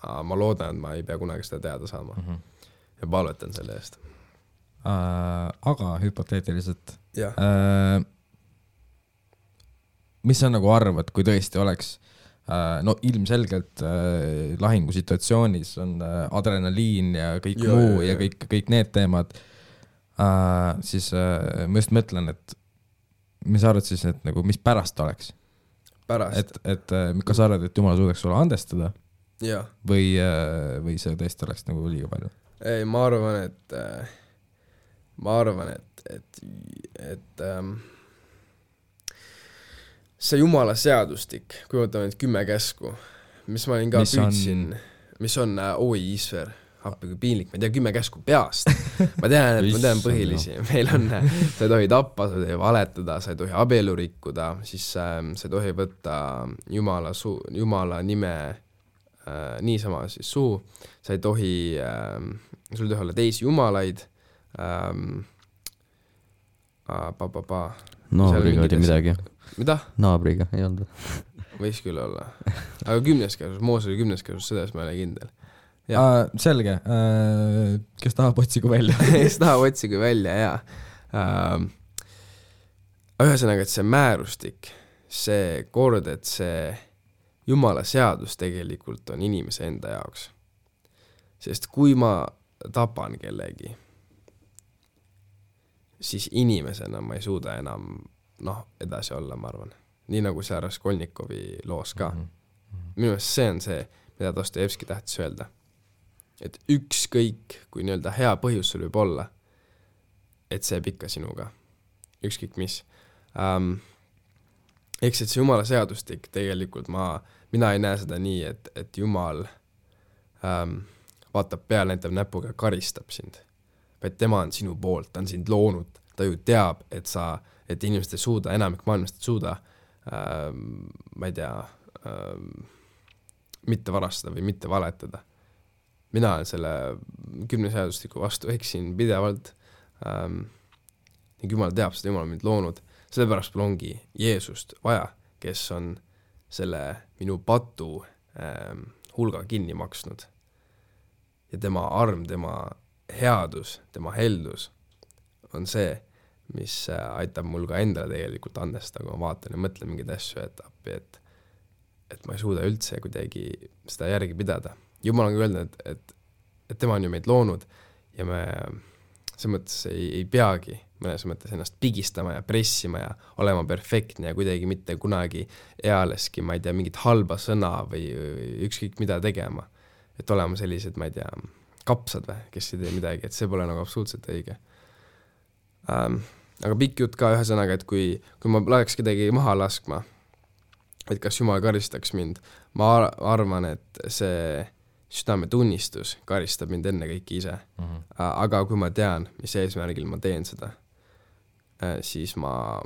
ma loodan, et ma ei pea kunagi seda teada saama ja palvetan selle eest. Aga hüpoteetiliselt, mis sa nagu arvad, kui tõesti oleks no ilmselgelt lahingusituatsioonis on adrenaliin ja kõik muu ja kõik need teemad, siis ma just mõtlen, et mis sa arvad siis, et nagu, mis pärast oleks? Pärast? Et kas sa arvad, et Jumal suudaks sulle andestada? Ja. Või see tõesti oleks nagu liiga palju? Ei, ma arvan, et see Jumala seadustik, kui võtame need 10 käsku, mis ma olin ka püüdsin, mis on Isver, appi kui piinlik, ma ei tea 10 käsku peast. Ma tean põhilisi. Meil on, sa ei tohi tappa, sa ei tohi valetada, sa ei tohi abielu rikkuda, siis sa ei tohi võtta Jumala nime niisama siis suhu, sa ei tohi, sul ei tohi olla teisi jumalaid, Naabriga oli midagi. Mida? Naabriga, ei olnud. Võis küll olla. Aga 10. käsus, Moos oli 10. käsus, seda ma ei ole kindel. Selge, kes tahab otsigu välja? Kes tahab otsigu välja, jaa. Ühesõnaga, et see määrustik, see kord, et see Jumala seadus tegelikult on inimese enda jaoks. Sest kui ma tapan kellegi, siis inimesena ma ei suuda enam edasi olla, ma arvan. Nii nagu see Raskolnikovi loos ka. Minu meelest see on see, mida Dostojevski tähtis öelda. Et ükskõik, kui nii-öelda hea põhjus sul võib olla, et see pikka sinuga. Ükskõik mis. Eks et see Jumala seadustik tegelikult mina ei näe seda nii, et Jumal vaatab peale, näitab näpuga ja karistab sind. Vaid tema on sinu poolt, ta on sind loonud, ta ju teab, et inimesed ei suuda, enamik maailmast ei suuda, ma ei tea, mitte varastada või mitte valetada. Mina olen selle 10 seadustiku vastu eksin pidevalt. Jumal teab seda, Jumal on mind loonud. Sellepärast mul ongi Jeesust vaja, kes on selle minu patu hulga kinni maksnud. Ja tema arm, tema headus, tema heldus on see, mis aitab mul ka endale tegelikult andestada, kui ma vaatan ja mõtlen mingeid asju, et ma ei suuda üldse kuidagi seda järgi pidada. Jumal on öelnud, et tema on ju meid loonud ja me see mõttes ei peagi mõnes mõttes ennast pigistama ja pressima ja olema perfektne ja kuidagi mitte kunagi ealeski, ma ei tea, mingit halba sõna või ükskõik mida tegema. Et olema sellised, ma ei tea, kapsad või, kes ei tee midagi, et see pole nagu absoluutselt õige. Aga pikk jutt ka ühesõnaga, et kui ma läheks kedagi maha laskma, et kas Jumal karistaks mind, ma arvan, et see südametunnistus karistab mind enne kõiki ise. Aga kui ma tean, mis eesmärgil ma teen seda, siis ma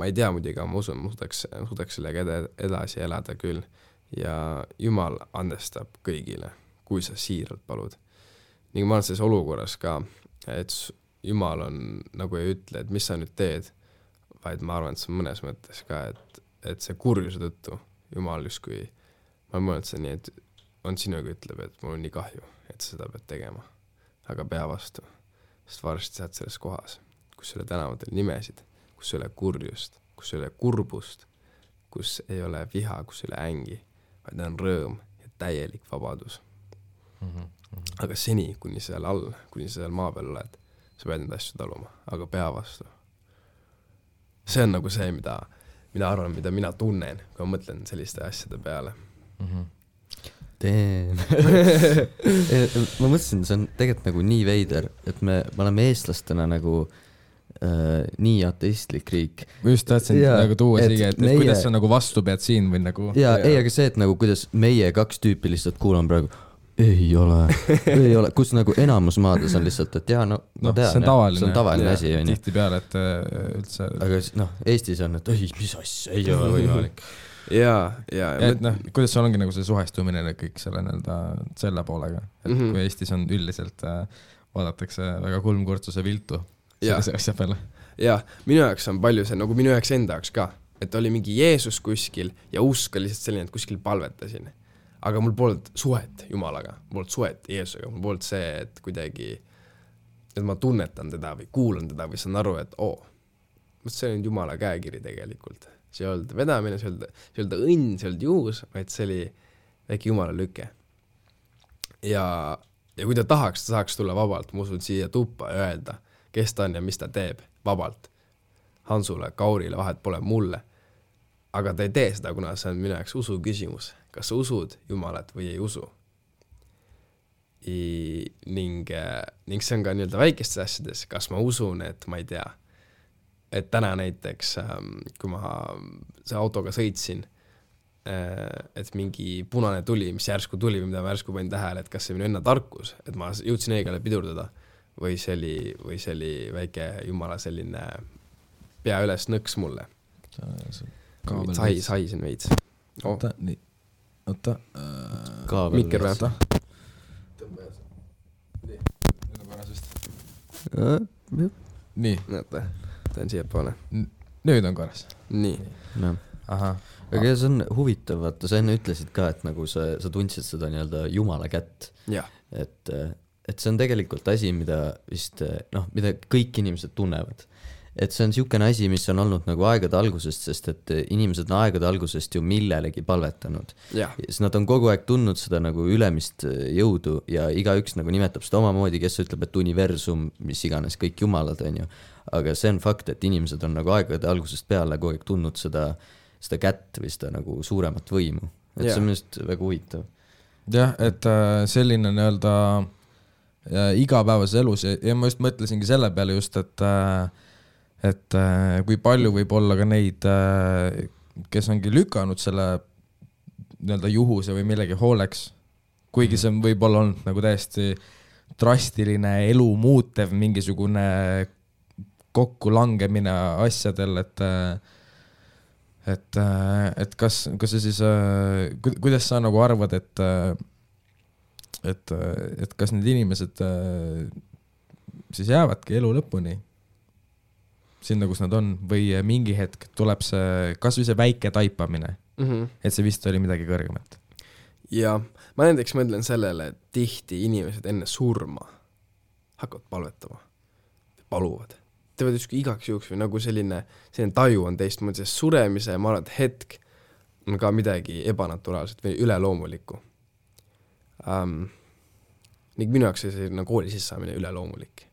ei tea muidugi, ma usun, ma suudaks sellega edasi elada küll. Ja Jumal andestab kõigile, kui sa siiralt palud. Ning ma olen selles olukorras ka, et Jumal on, nagu ei ütle, et mis sa nüüd teed, vaid ma arvan, et see on mõnes mõttes ka, et see kurjuse tõttu Jumal justkui, ma mõelnud see nii, et on sinuga ütleb, et mul on nii kahju, et sa seda pead tegema. Aga pea vastu, sest varsti saad selles kohas, kus ei ole tänavatel nimesid, kus ei ole kurjust, kus ei ole kurbust, kus ei ole viha, kus ei ole ängi, vaid on rõõm ja täielik vabadus. Aga seni, kuni seal all, kuni seal maa peal oled, sa pead need asju taluma, aga pea vastu. see on nagu see, mida arvan, mida mina tunnen, kui ma mõtlen selliste asjade peale. Ma mõtlesin, see on tegelikult nagu nii veider, et me oleme eestlastena nagu nii ateistlik riik. Ma just tahtsin nagu tuua siia, et meie... kuidas sa nagu vastu pead siin või nagu... Ei, aga see, et nagu kuidas meie 2 tüüpi lihtsalt kuulan praegu, ei ole, kus nagu enamus maades on lihtsalt, et jaa, no ma tean, see on tavaline asi. Tihti peale, et üldse... Aga Eestis on, et ei, mis asja, ei ole võimalik. Ja, et kuidas sul ongi nagu see suhestumine kõik selle poolega, et kui Eestis on üldiselt vaadatakse väga kulmkurtsuse viltu sellise asja peale. Ja, minu jaoks on palju see, nagu minu jaoks enda jaoks ka, et oli mingi Jeesus kuskil ja usk oli lihtsalt selline, et kuskil palvetasin. Aga mul polnud suhet Jumalaga, mul polnud suhet Jeesusega, mul polnud see, et kuidagi, et ma tunnetan teda või kuulan teda või saan aru, et see on Jumala käekiri tegelikult. See ei olnud vedamine, see ei olnud õnn, see ei olnud juhus, vaid see oli väike Jumala lüke. Ja kui ta saaks tulla vabalt, ma usun siia tuppa ja öelda, kes ta on ja mis ta teeb vabalt. Hansule, Kaurile, vahet pole mulle. Aga ta ei tee seda, kuna see on minu jaoks usu küsimus. Kas sa usud Jumalat või ei usu? Ning see on ka nii-öelda väikestes asjades. Kas ma usun, et ma ei tea, et täna näiteks, kui ma see autoga sõitsin, et mingi punane tuli, mis järsku tuli või mida ma järsku panin tähele, et kas see minu enne tarkus, et ma jõudsin õigele pidurdada või see oli väike Jumala selline pea üles nõks mulle. Saisin veits. Oota, nii. Oota. Mikker või? Nüüd on korras vist. Nii. Näete, ta on siia poole. Nüüd on korras. Nii. Aha. Aga see on huvitav, vaata, sa enne ütlesid ka, et nagu sa tundsid seda nii-öelda Jumala kätt. Et see on tegelikult asi, mida vist, mida kõik inimesed tunnevad. Et see on siukene asi, mis on olnud nagu aegade algusest, sest et inimesed on aegade algusest ju millelegi palvetanud. Siis nad on kogu aeg tundnud seda nagu ülemist jõudu ja igaüks nagu nimetab seda omamoodi, kes ütleb, et universum, mis iganes, kõik jumalad on ju. Aga see on fakt, et inimesed on nagu aegade algusest peale kogu aeg tundnud seda kätt või seda nagu suuremat võimu. Et see on minust väga huvitav. Jah, et selline nii-öelda igapäevases elus ja ma just mõtlesingi selle peale just, et kui palju võib olla ka neid, kes ongi lükanud selle nii-öelda juhuse või millegi hooleks, kuigi see võib olla olnud nagu täiesti drastiline elu muutev mingisugune kokkulangemine asjadel, et kas see siis, kuidas sa nagu arvad, et kas need inimesed siis jäävadki elu lõpuni sinna, kus nad on, või mingi hetk tuleb see, kas või see väike taipamine, et see vist oli midagi kõrgemat. Ja ma näiteks mõtlen sellele, et tihti inimesed enne surma hakkavad palvetama, paluvad. Teevad ükski igaks juhuks või nagu selline taju on teistmoodi, sest suremise, ma arvan, et hetk on ka midagi ebanaturaalset või üleloomulikku. Ning minu jaoks see kooli sissaamine üleloomulik.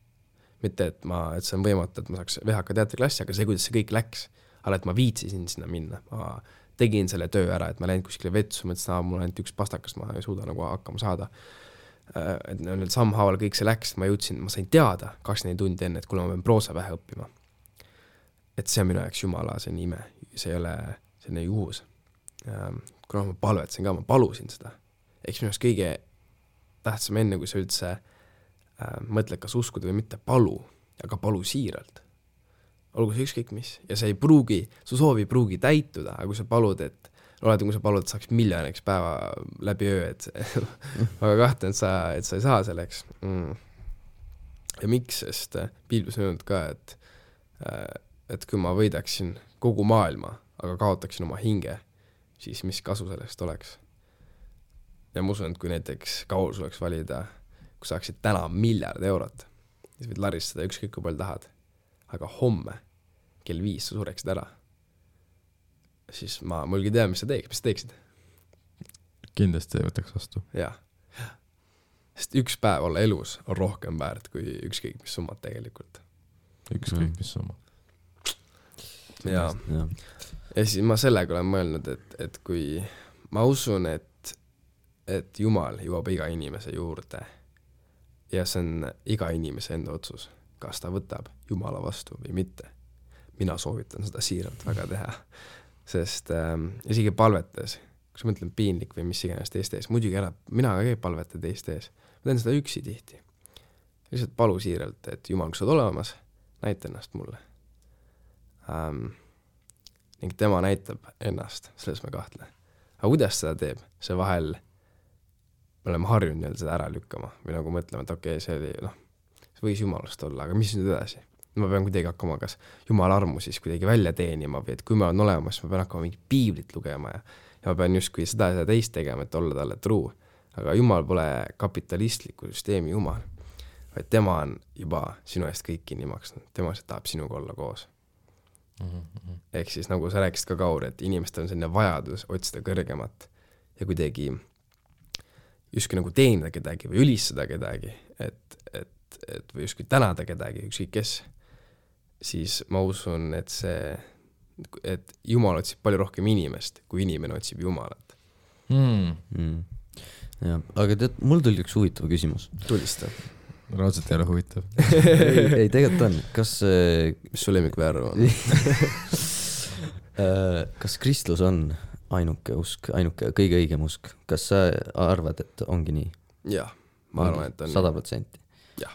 Mitte, et see on võimatu, et ma saaks VHK teatriklassi, aga see, kuidas see kõik läks, aga et ma viitsisin sinna minna. Ma tegin selle töö ära, et ma läinud kuskile vetsu, mõtlesin, mul ainult üks pastakas, ma ei suuda nagu hakkama saada. Et nüüd sammhaaval kõik see läks, ma sain teada 24 tundi enne, et kuule ma pean proosavähe õppima. Et see on minu jaoks Jumala, see on ime, see ei ole selline juhus. Kuna ma palvetsin ka, ma palusin seda. Eks minu jaoks kõige tähtsam enne, kui sa üldse mõtled, kas uskuda või mitte, palu, aga palu siiralt. Olgu see ükskõik mis. Ja see ei pruugi, su soovi ei pruugi täituda, aga kui sa palud, et kui sa palud, et saaks miljoniks päeva läbi öö, et väga kahtlen, et sa ei saa selleks. Ja miks, sest Piiblis on öelnud ka, et kui ma võidaksin kogu maailma, aga kaotaksin oma hinge, siis mis kasu sellest oleks. Ja ma usun, et kui näiteks Kaul suleks valida, kui saaksid täna €1 miljard, siis võid laristada ükskõik kui palju tahad. Aga homme kell 5 sa sureksid ära. Siis ma mulgi tea, mis sa teeksid. Kindlasti ei võtaks vastu. Jah. Sest üks päev olla elus on rohkem väärt kui ükskõik mis summad tegelikult. Ükskõik mis summad. ja siis ma sellega olen mõelnud, et kui ma usun, et Jumal jõuab iga inimese juurde ja see on iga inimese enda otsus, kas ta võtab Jumala vastu või mitte. Mina soovitan seda siiralt väga teha, sest isegi palvetes, kui sa mõtlen piinlik või mis iganes teiste ees, muidugi mina ka ei palveta teiste ees, ma teen seda üksi tihti. Lihtsalt palu siiralt, et Jumal, kui sa oled olemas, näita ennast mulle. Ning tema näitab ennast, selles ma kahtle. Aga kuidas seda teeb? See vahel me oleme harjunud seda ära lükkama või nagu mõtlema, et okei, see oli, see võis Jumalast olla, aga mis nüüd edasi? Ma pean kuidagi hakkama kas Jumala armu siis kuidagi välja teenima või et kui ma olen olemas, ma pean hakkama mingi piiblit lugema ja ma pean justkui seda ja teist tegema, et olla talle truu. Aga Jumal pole kapitalistliku süsteemi Jumal, vaid tema on juba sinu eest kõik kinni maksnud. Tema tahab sinuga olla koos. Ehk siis nagu sa rääkisid ka Kaur, et inimestel on selline vajadus otsida kõrgemat ja kuidagi justkui nagu teenida kedagi või ülistada kedagi, et või justkui tänada kedagi, ükskõik kes, siis ma usun, et Jumal otsib palju rohkem inimest, kui inimene otsib Jumalat. Ja, aga tead, mul tuli üks huvitav küsimus. Tulista. Raudselt ei ole huvitav. ei, tegelikult on. Mis su lemmikväär on? Kas kristlus on ainuke usk, ainuke kõige õigem usk? Kas sa arvad, et ongi nii? Jah, ma arvan, et on 100%. Jah.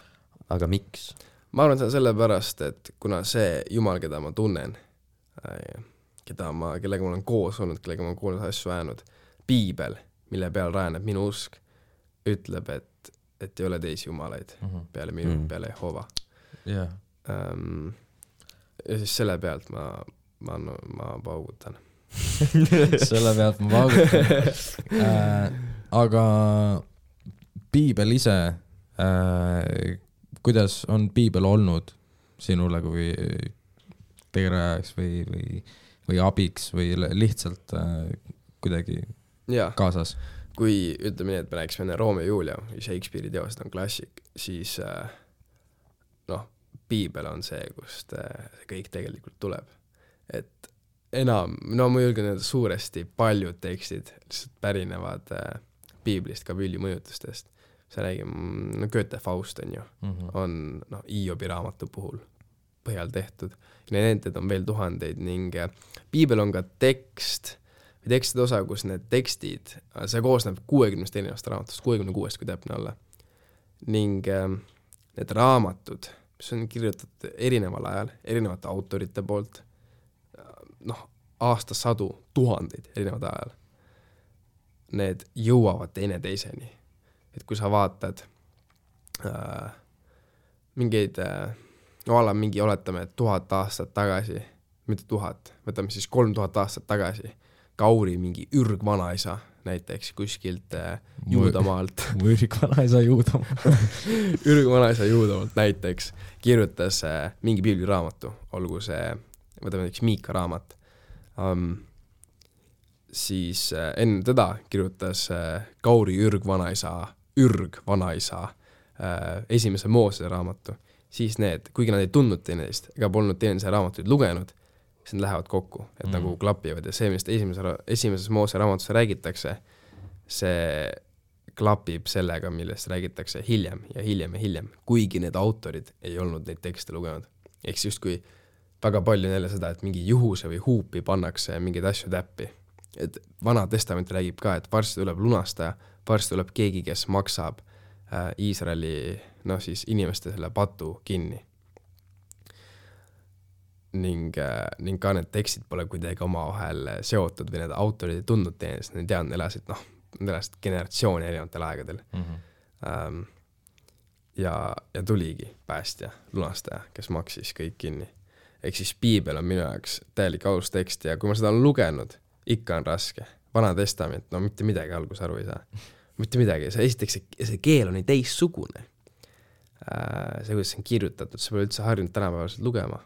Aga miks? Ma arvan, et see on sellepärast, et kuna see Jumal, keda ma tunnen, kellega ma olen koos olnud, kellega ma olen koos asju ajanud, piibel, mille peal rajaneb minu usk, ütleb, et ei ole teisi jumalaid peale minu, peale Jehova. Yeah. Ja siis selle pealt ma paugutan. Selle pealt ma paugutan. Aga piibel ise, kuidas on piibel olnud sinule kui tegerajaks või abiks või lihtsalt kuidagi kaasas? Kui ütleme nii, et me rääkisime enne Romeo ja Julia või Shakespeare'i teosed on klassik, siis piibel on see, kust see kõik tegelikult tuleb. Et ma julgen öelda suuresti paljud tekstid lihtsalt pärinevad piiblist, ka Villi mõjutustest. See räägib, Goethe Faust on ju, on Iobi raamatu puhul põhjal tehtud. Need on veel tuhandeid ning piibel on ka tekstide osa, kus need tekstid, see koosneb 60 erinevast raamatust, 66, kui täpne olla. Ning need raamatud, mis on kirjutatud erineval ajal, erinevate autorite poolt, aastasadu, tuhandeid erinevad ajal, need jõuavad teineteiseni. Et kui sa vaatad mingi oletame 1000 aastat tagasi, mitte 1000, võtame siis 3000 aastat tagasi, Kauri mingi ürgvanaisa näiteks kuskilt Juudamaalt. Ürgvanaisa Juudamaalt. Ürgvanaisa Juudamaalt näiteks kirjutas mingi piibliraamatu, olgu see, võtame näiteks Miika raamat. Siis enne teda kirjutas Kauri ürgvanaisa esimese Moosese raamatu. Siis kuigi nad ei tundnud teineteist ega polnud teineteise raamatuid lugenud, siis nad lähevad kokku, et nagu klapivad ja see, millest esimeses Moose raamatusse räägitakse, see klapib sellega, millest räägitakse hiljem ja hiljem ja hiljem, kuigi need autorid ei olnud neid tekste lugenud. Ehk just kui väga palju neile seda, et mingi juhuse või huupi pannakse mingeid asju täppi. Et Vana Testament räägib ka, et varsti tuleb lunastaja, varsti tuleb keegi, kes maksab Iisraeli siis inimeste selle patu kinni. Ning ka need tekstid pole kuidagi oma vahel seotud või need autorid ei tundnud teenest, need elasid generatsiooni erinevatel aegadel. Ja tuligi päästja, lunastaja, kes maksis kõik kinni. Ehk siis piibel on minu jaoks täielik alustekst ja kui ma seda olen lugenud, ikka on raske. Vana Testament, mitte midagi algus aru ei saa. Mitte midagi, esiteks see keel on nii teissugune. See, kuidas see on kirjutatud, see pole üldse harjunud tänapäevaselt lugema.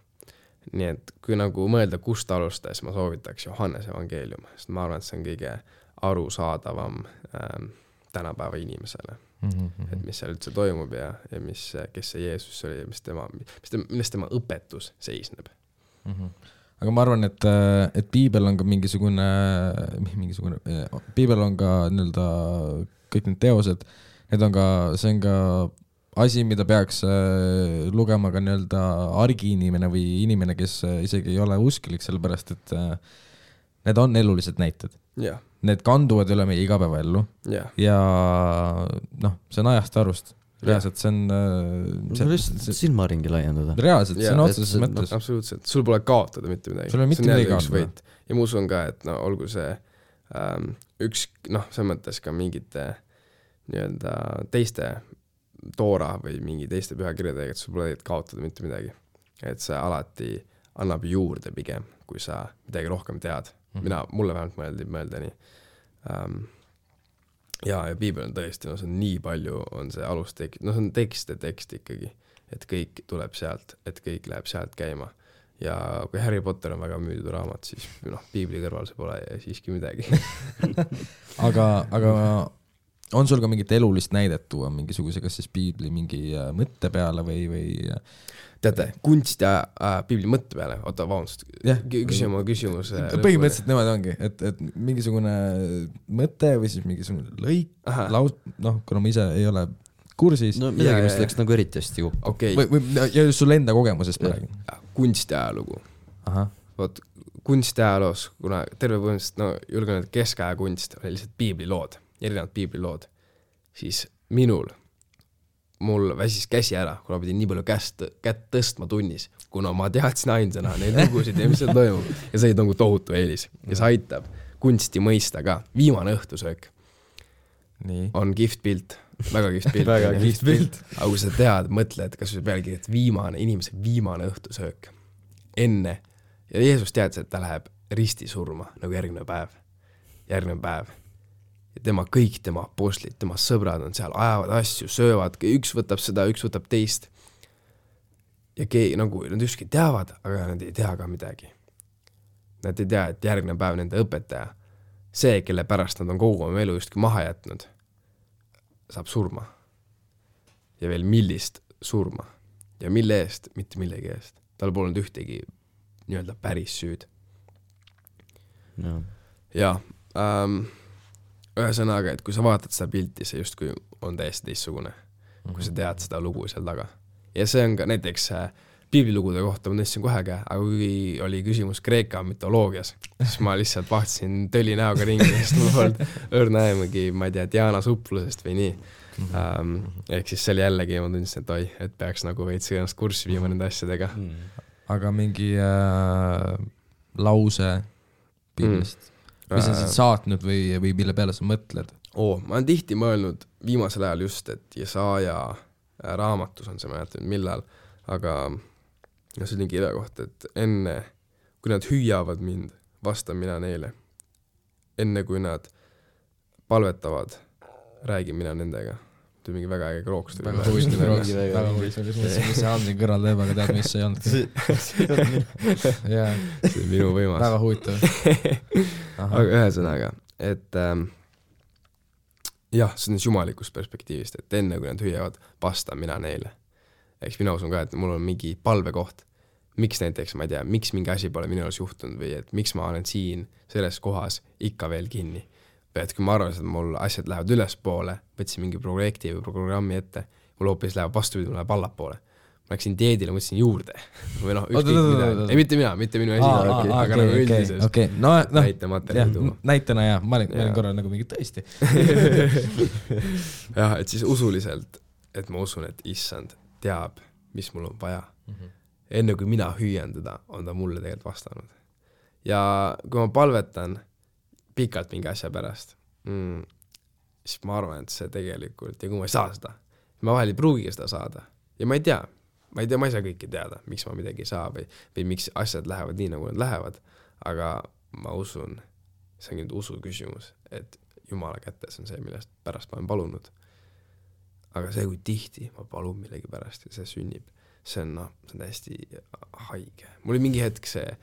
Nii et kui nagu mõelda, kust alustas, ma soovitaks Johannese evangeelium, sest ma arvan, et see on kõige arusaadavam tänapäeva inimesele. Et mis seal üldse toimub ja kes see Jeesus oli ja millest tema õpetus seisneb. aga ma arvan, et piibel on ka mingisugune, piibel on ka nii-öelda kõik need teosed, need on ka, see on ka asi, mida peaks lugema ka nii-öelda argiinimene või inimene, kes isegi ei ole usklik, sellepärast et need on elulised näited. Yeah. Need kanduvad üle meie igapäevaellu yeah. ja noh, see on ajast arust. Reaalselt see on silmaringi laiendada. Reaalselt, see on otseses mõttes. Absoluutselt, sul pole kaotada mitte midagi. Sul on mitte midagi kaotada. Ja ma usun ka, et no, olgu see üks, noh, see mõttes ka mingite nii-öelda teiste toora või mingi teiste pühakirjadega, et sul pole kaotada mitte midagi. Et see alati annab juurde pigem, kui sa midagi rohkem tead. Mulle vähemalt mõelda nii. Ja piibel on tõesti, no see on nii palju, on see alustekst, no see on tekst ikkagi, et kõik tuleb sealt, et kõik läheb sealt käima. Ja kui Harry Potter on väga müüdud raamat, siis noh, piibli kõrval see pole siiski midagi. aga on sul ka mingit elulist näidet tuua mingisuguse, kas siis piibli mingi mõtte peale või teate, kunst ja piibli mõtte peale, oota, vabandust, küsimus. Põhimõtteliselt nemad ongi, et mingisugune mõte või siis mingisugune lõik, noh, kuna ma ise ei ole kursis. No midagi, mis läks nagu eriti hästi kokku. Okay. Ja just sulle enda kogemusest praegu. Kunst ja ajalugu. Vot, kunst ja ajaloos, kuna terve põhimõtteliselt, no julgen, et keskaja kunst oli lihtsalt piiblilood, erinevad piiblilood, siis mul väsis käsi ära, kuna pidin nii palju kätt tõstma tunnis, kuna ma teadsin ainsana neid lugusid ja mis seal toimub. Ja see on tohutu eelis. Ja see aitab kunsti mõista ka. Viimane õhtusöök on kihvt pilt, väga kihvt pilt. Väga kihvt pilt. Aga kui sa tead, mõtled, kas või pealegi, et inimese viimane õhtusöök enne. Ja Jeesus teadis, et ta läheb risti surma nagu järgmine päev. Ja kõik tema apostlid, tema sõbrad on seal, ajavad asju, söövad, üks võtab seda, üks võtab teist. Ja nagu nad ükski teavad, aga nad ei tea ka midagi. Nad ei tea, et järgmine päev nende õpetaja, see, kelle pärast nad on kogu oma elu justki maha jätnud, saab surma. Ja veel millist surma. Ja mille eest, mitte millegi eest. Tal polnud ühtegi nii-öelda päris süüd. No. Ja ühesõnaga, et kui sa vaatad seda pilti, see justkui on täiesti teistsugune, kui sa tead seda lugu seal taga. Ja see on ka näiteks piiblilugude kohta, ma tõstsin kohe ka, aga kui oli küsimus Kreeka mütoloogias, siis ma lihtsalt vahtsin tõli näoga ringi, sest ma polnud õrnaemagi, ma ei tea, Diana suplusest või nii. Ehk siis see oli jällegi, ma tundsin, et et peaks nagu veits ennast kurssi viima nende asjadega. Aga mingi lause piiblist? Mis on saatnud või mille peale sa mõtled? Ma olen tihti mõelnud viimasel ajal just, et Jesaja raamatus on see, ma jätan millal, aga see oli kirja kohta, et enne, kui nad hüüavad mind, vastan mina neile. Enne, kui nad palvetavad, räägin mina nendega. See mingi väga äge krooks. Väga huvitav, mis see Andri kõrval teeb, aga tead, mis see ei olnud. See on minu võimas. Väga huvitav. Aga ühesõnaga, et jah, see on jumalikust perspektiivist, et enne, kui nad hüüavad, vastan mina neile. Eks mina usun ka, et mul on mingi palvekoht. Miks näiteks, ma ei tea, miks mingi asi pole minu jaoks juhtunud või et miks ma olen siin selles kohas ikka veel kinni. Või et kui ma arvan, et mul asjad lähevad ülespoole, võtsin mingi projekti või programmi ette, mul hoopis läheb vastupidi, mul läheb allapoole. Ma läksin dieedile, mõtlesin juurde. Või noh, ükskõik midagi. Ei, mitte minu esi, aga nagu üldises näitena jah, ma olin korral nagu mingi tõesti. Jah, et siis usuliselt, et ma usun, et issand teab, mis mul on vaja. Enne kui mina hüüan teda, on ta mulle tegelikult vastanud. Ja kui ma palvetan pikalt mingi asja pärast, siis ma arvan, et see tegelikult, ja kui ma ei saa seda, ma vahel ei pruugi seda saada. Ja ma ei saa kõike teada, miks ma midagi ei saa või miks asjad lähevad nii, nagu nad lähevad, aga ma usun, see on nüüd usu küsimus, et Jumala kätes on see, millest pärast ma olen palunud. Aga see, kui tihti ma palun millegi pärast ja see sünnib, see on täiesti haige. Mul oli mingi hetk see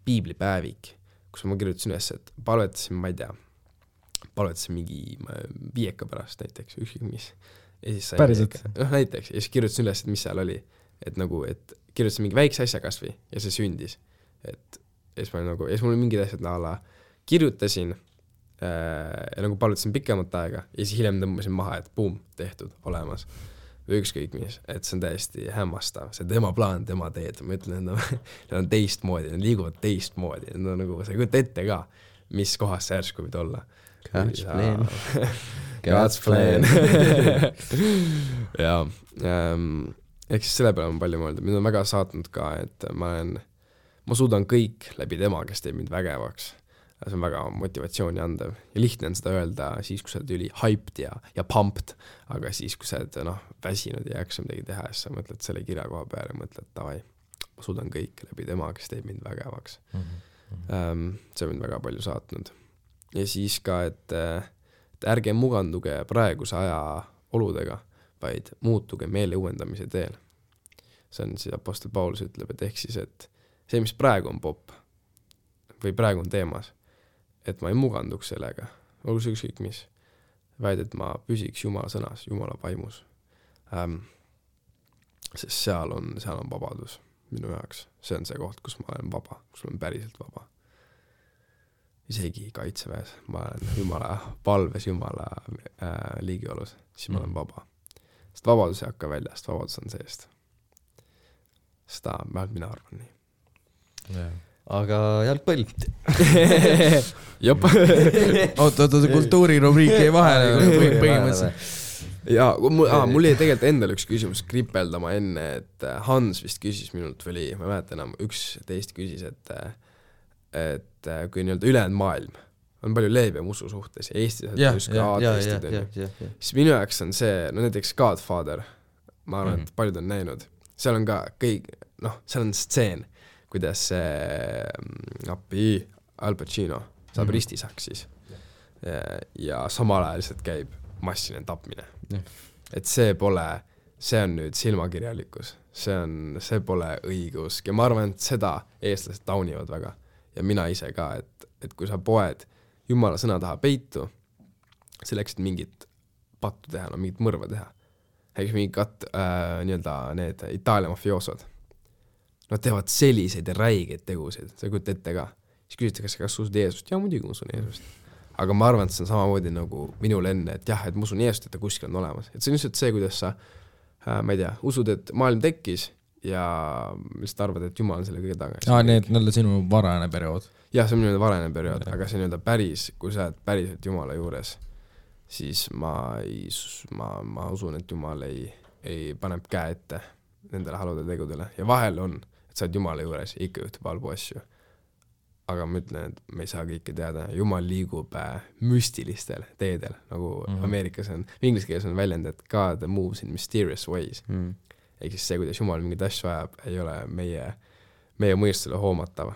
piiblipäevik, kus ma kirjutasin üles, et palvetasin mingi 5 pärast näiteks, ükskõik mis. Päriselt? Näiteks, ja siis kirjutasin üles, et mis seal oli. Et nagu, et kirjutasin mingi väikse asja kasvi ja see sündis. et siis mul oli mingid asjad kirjutasin ja nagu palutasin pikemat aega ja siis hiljem tõmbasin maha, et boom, tehtud, olemas või ükskõik mis, et see on täiesti hämmastav, see tema plaan, tema teed, ma ütlen, need on teistmoodi, need liiguvad teistmoodi, need on nagu, sa ei kujuta ette ka, mis kohas see järsku võid olla. God's plan. God's plan. ja ehk siis selle peale on palju mõelda, mind on väga saatnud ka, et ma suudan kõik läbi tema, kes teeb mind vägevaks. See on väga motivatsiooni andev ja lihtne on seda öelda siis, kui sa oled üli hyped ja pumped, aga siis, kui sa oled väsinud ja jaksa midagi teha, siis sa mõtled selle kirja koha peale ja mõtled, davai, ma suudan kõik läbi tema, kes teeb mind vägevaks. See on mind väga palju saatnud. Ja siis ka, et ärge muganduge praeguse aja oludega, vaid muutuge meele uuendamise teel. See on siis Apostel Paulus ütleb, et ehk siis, et see, mis praegu on popp või praegu on teemas, et ma ei muganduks sellega, olgu see ükskõik mis, vaid et ma püsiks Jumala sõnas, Jumala vaimus. Sest seal on vabadus minu jaoks. See on see koht, kus ma olen vaba, kus ma olen päriselt vaba. Isegi kaitseväes, ma olen Jumala palves, Jumala liigiolus, siis ma olen vaba. Sest vabadus ei hakka väljast, vabadus on seest. Seda mina arvan nii. Yeah. Aga jalgpall. Jop. Oota, kultuurirubriik ei vahele põhimõtteliselt. Ja mul jäi tegelikult endal üks küsimus kripeldama enne, et Hans vist küsis minult või ma ei mäleta enam, üks teist küsis, et kui nii-öelda ülejäänud maailm on palju leebem usu suhtes ja Eestis siis minu jaoks on see, näiteks Godfather, ma arvan, et paljud on näinud, seal on ka kõik, seal on stseen, kuidas Al Pacino saab ristisaks siis ja samal ajal lihtsalt käib massiline tapmine. Et see on nüüd silmakirjalikkus, see pole õigusk ja ma arvan, et seda eestlased taunivad väga ja mina ise ka, et kui sa poed Jumala sõna taha peitu selleks, et mingit pattu teha, mingit mõrva teha, mingit nii-öelda need Itaalia mafioosod, nad teevad selliseid räigeid tegusid, sa ei kujuta ette ka. Siis küsitakse, kas usud Jeesust? Ja muidugi usun Jeesust. Aga ma arvan, et see on samamoodi nagu minul enne, et jah, et ma usun Jeesust, et ta kuskil on olemas. Et see on lihtsalt see, kuidas sa, ma ei tea, usud, et maailm tekkis ja lihtsalt arvad, et Jumal on selle kõige taga. Need sinu varane periood. Jah, see on minu varane periood, aga see on päris, kui sa oled päriselt Jumala juures, siis ma usun, et Jumal ei paneb käe ette nendele halude tegudele ja vahel on, et sa oled Jumala juures ja ikka juhtub halbu asju. Aga ma ütlen, et me ei saa kõike teada. Jumal liigub müstilistel teedel, nagu Ameerikas on, inglise keeles on väljend, et God moves in mysterious ways. Ehk siis see, kuidas Jumal mingid asju ajab, ei ole meie mõistusele hoomatav.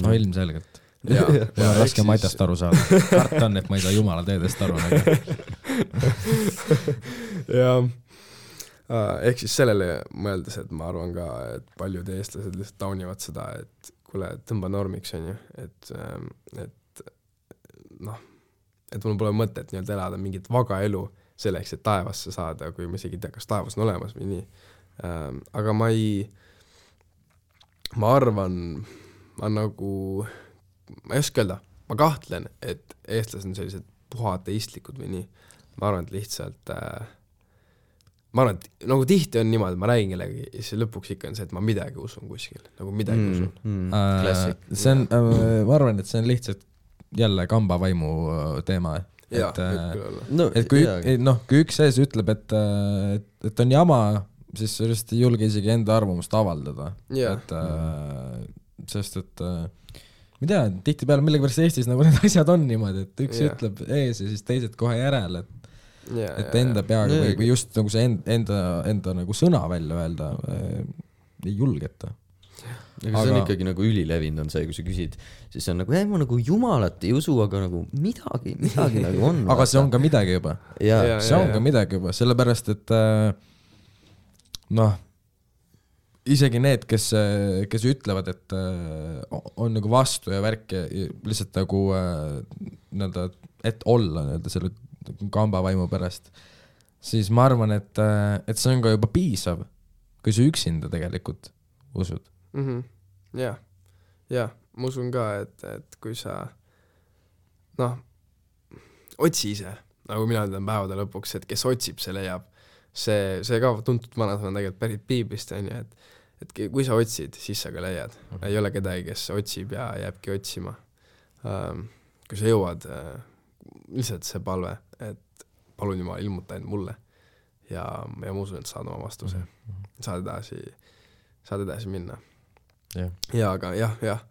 No ilmselgelt. Mul on raske Matjast aru saada. Kart on, et ma ei saa Jumala teedest aru. Ja ehk siis sellele mõeldes, et ma arvan ka, et paljud eestlased lihtsalt taunivad seda, et kuule, tõmba normiks on ju, et mul pole mõtet nii-öelda elada mingit vaga elu selleks, et taevasse saada, kui ma isegi ei tea, kas taevas on olemas või nii. Aga ma arvan, ma ei oska öelda, ma kahtlen, et eestlased on sellised puhateistlikud või nii. Ma arvan, et lihtsalt nagu tihti on niimoodi, ma räägin kellegi ja siis lõpuks ikka on see, et ma midagi usun kuskil, nagu midagi usun. See on, ma arvan, et see on lihtsalt jälle kambavaimu teema. Kui üks sees ütleb, et on jama, siis sa just ei julge isegi enda arvamust avaldada. Sest et ma ei tea, tihti peale millegipärast Eestis nagu need asjad on niimoodi, et üks ütleb ees ja siis teised kohe järel, et enda peaga või just nagu see enda nagu sõna välja öelda ei julgeta. Aga see on ikkagi nagu ülilevinud on see, kui sa küsid, siis on nagu, ma nagu Jumalat ei usu, aga nagu midagi nagu on. Aga see on ka midagi juba. See on ka midagi juba, sellepärast, et isegi need, kes ütlevad, et on nagu vastu ja värk ja lihtsalt nagu et olla selle kambavaimu pärast, siis ma arvan, et see on ka juba piisav, kui sa üksinda tegelikult usud. jah, ma usun ka, et kui sa otsi ise, nagu mina ütlen päevade lõpuks, et kes otsib, see leiab. See ka tuntud vanasõna tegelikult pärit piiblist, on ju, et kui sa otsid, siis sa ka leiad. Ei ole kedagi, kes otsib ja jääbki otsima. Kui sa jõuad, lihtsalt see palve, et palun Jumal, ilmuta end mulle ja ma usun, et saad oma vastuse. Saad edasi minna. Ja aga jah. Ja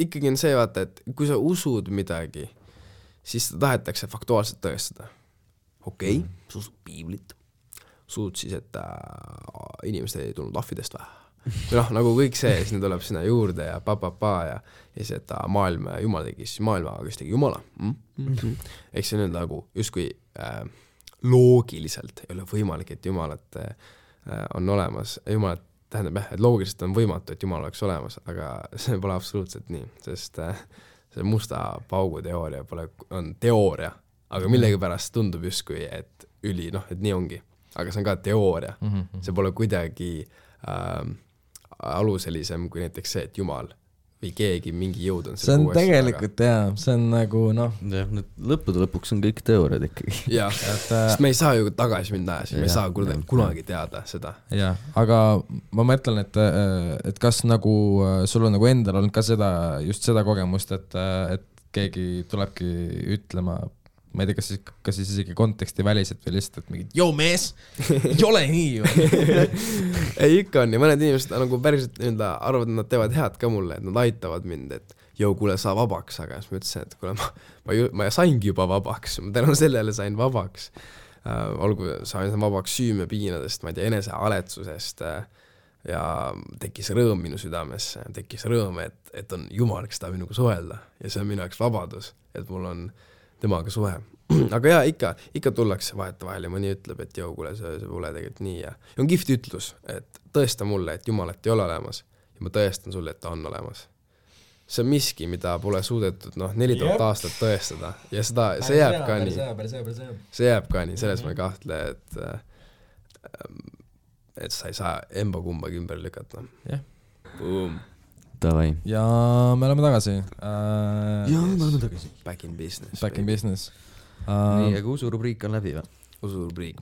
ikkagi on see vaata, et kui sa usud midagi, siis seda tahetakse faktuaalselt tõestada. Okei, sa usud piiblit. Suud siis, et inimesed ei tulnud ahvidest või? Nagu kõik see, siis need tuleb sinna juurde ja ja siis, et maailm, Jumal tegi siis maailma, aga kes tegi Jumala. Ehk see nüüd nagu justkui loogiliselt ei ole võimalik, et Jumalat on olemas. Jumalat tähendab jah, et loogiliselt on võimatu, et Jumal oleks olemas, aga see pole absoluutselt nii, sest see musta paugu teooria on teooria, aga millegi pärast tundub justkui, et et nii ongi. Aga see on ka teooria. See pole kuidagi aluselisem kui näiteks see, et Jumal või keegi mingi jõud on see on tegelikult jah, see on nagu lõppude lõpuks on kõik teooriad ikkagi. Jah, sest me ei saa ju tagasi minna ajas, me ei saa kunagi teada seda. Jah, aga ma mõtlen, et kas nagu sul on nagu endal olnud ka just seda kogemust, et keegi tulebki ütlema, ma ei tea, kas siis isegi konteksti väliselt või lihtsalt, et mingid, joo mees, ei ole nii ju. Ei, ikka on ja mõned inimesed nagu päriselt arvavad, et nad teevad head ka mulle, et nad aitavad mind, et joo, kuule, saa vabaks, aga siis ma ütlesin, et kuule, ma saingi juba vabaks, ma tänu sellele sain vabaks. Olgu, sain vabaks süümepiinadest, ma ei tea, enesealetsusest ja tekkis rõõm minu südamesse, tekkis rõõm, et on Jumal, kes tahab minuga suhelda ja see on minu jaoks vabadus, et mul on temaga suhe. Aga jaa, ikka tullakse vahetevahel ja mõni ütleb, et joo, kuule, see pole tegelikult nii ja on kihvt ütlus, et tõesta mulle, et Jumalat ei ole olemas ja ma tõestan sulle, et ta on olemas. See on miski, mida pole suudetud 4000 aastat tõestada ja see jääb ka nii. See jääb ka nii, selles ma ei kahtle, et sa ei saa emba kumbagi ümber lükata. Jah. Boom. Davai. Ja me oleme tagasi. Back in business. Back in business. Nii, aga usurubriik on läbi või? Usurubriik.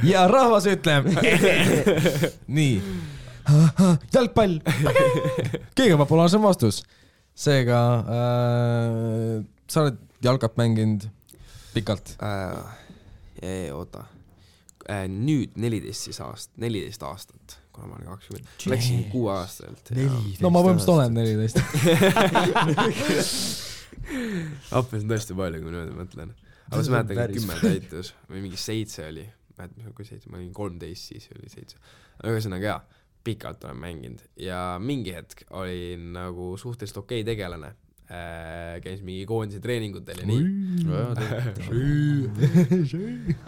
Ja rahvas ütleb. Nii. Jalgpall. Kõige populaarsem vastus. Seega sa oled jalgat mänginud pikalt? Oota. Nüüd 14 aastat. Kuna ma olen 20. Läksin 6 aastalt. No ma põhimõtteliselt olen 14. Appes on tõesti palju, kui nüüd mõtlen. Aga ma mäletan, 10 täitus või mingi 7 oli. Ma olin 13, siis oli 7. Ühesõnaga jaa, pikalt olen mänginud. Ja mingi hetk olin nagu suhteliselt okei tegelane. Käis mingi koondise treeningutel ja nii.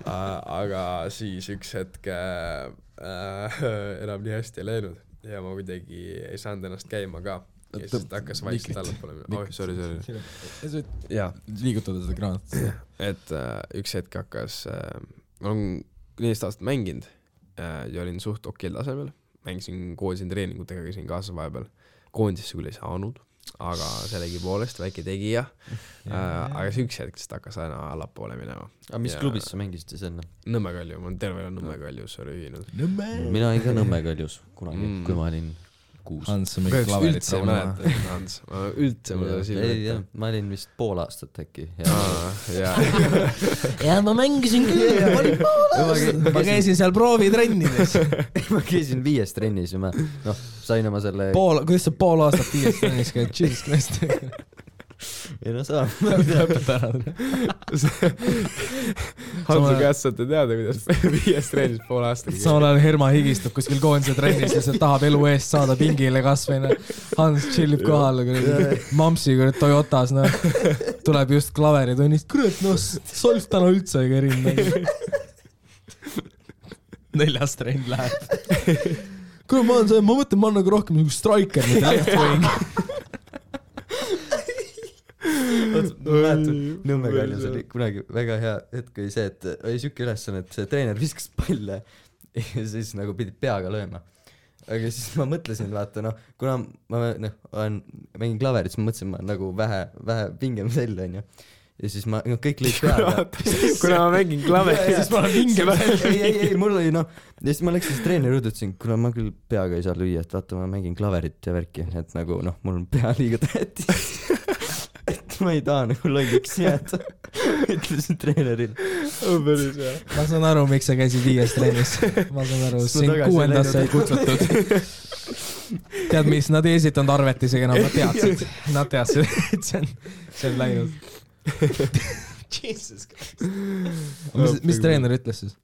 Aga siis üks hetk enam nii hästi ei läinud ja ma kuidagi ei saanud ennast käima ka ja siis hakkas vaikselt allapoole. Sorry. Liigutada seda kraanat. Et üks hetk hakkas, ma olen 14 aastat mänginud ja olin suht okil tasemel, mängisin koondise treeningutega, käisin kaasa vahepeal, koondisesse küll ei saanud, aga sellegi poolest väike tegija, aga see üks hetk hakkas aina allapoole minema. Aga mis klubis sa mängisid siis enne? Nõmme Kalju, ma olen terve Nõmme Kaljus ühinud. Mina olin ka Nõmme Kaljus kunagi, kui ma olin 6. Hans on mingi klaverit raunama. Hans, üldse mul oli silme. Ma olin vist pool aastat äkki. Ja ma mängisin küll. Ma käisin seal proovitrennides. Ma käisin 5 trennis ja ma sain oma selle... Kuidas sa pool aastat 5 trennis käid? Jesus Christ. Ei no saa. Hansu käest saate teada, kuidas 5 trennis pool aastat. Samal ajal Herma higistub kuskil koondise trennis ja see tahab elu eest saada pingile kasvõina. Hans chillib kohal, Mamsi Toyotas, tuleb just klaveritunnist. Kurat, Solf täna üldse ei kärinud. 4. trenn läheb. Kurat, ma mõtlen, ma on nagu rohkem nagu striker, mitte left wing. Nõmme Kaljus oli kunagi väga hea hetk oli see, et oli siuke ülesanne, et see treener viskas palle ja siis nagu pidid peaga lööma. aga siis ma mõtlesin, vaata noh, kuna ma mängin klaverit, siis ma mõtlesin, ma nagu vähe pingem sell, onju. Ja siis ma, kõik lõid peaga. Kuna ma mängin klaverit, siis ma olen pingem sell. Ei, mul oli noh, ja siis ma läksin treeneri juurde, ütlesin, kuna ma küll peaga ei saa lüüa, et vaata, ma mängin klaverit ja värki, et nagu noh, mul on pea liiga tähtis. Et ma ei taha nagu lolliks jääda. Ütlesin treenerile. Päris hea. Ma saan aru, miks sa käisid 5 trennis. Ma saan aru, sind 6. sai kutsutud. Tead, mis nad ei esitanud arvet isegi enam, nad teadsid, et see on läinud. Jesus Christ. Mis treener ütles siis?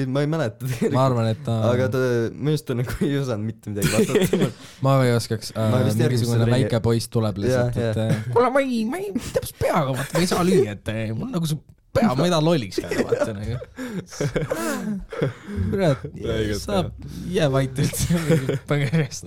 Ma ei mäleta tegelikult. Ma arvan, et aga ta, mõjust ta nagu ei osanud mitte midagi vastata. Ma ei oskaks, mingisugune väike poiss tuleb lihtsalt, et kuule, ma ei täpselt peaga, vaata, ma ei saa lüüa, et mul nagu see pea, ma ei taha lolliks käida, vaata nagu. Kurat, saab jää vait üldse põgerjast.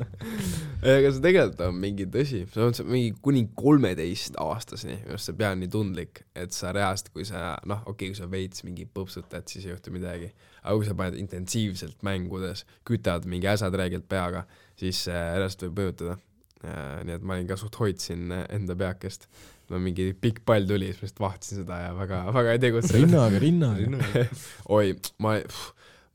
Aga see tegelikult on mingi tõsi, see on mingi kuni 13-aastaseni, just see pea on nii tundlik, et sa reast, kui sa, noh, okei, kui sa veits mingi põpsutad, siis ei juhtu midagi. Aga kui sa paned intensiivselt mängudes, kütad mingi äsad räägilt peaga, siis reast võib mõjutada. Nii et ma olin ka suht hoidsin enda peakest. No mingi pikk pall tuli, siis ma just vahtsin seda ja väga ei tegutse. Rinnaga. Oi, ma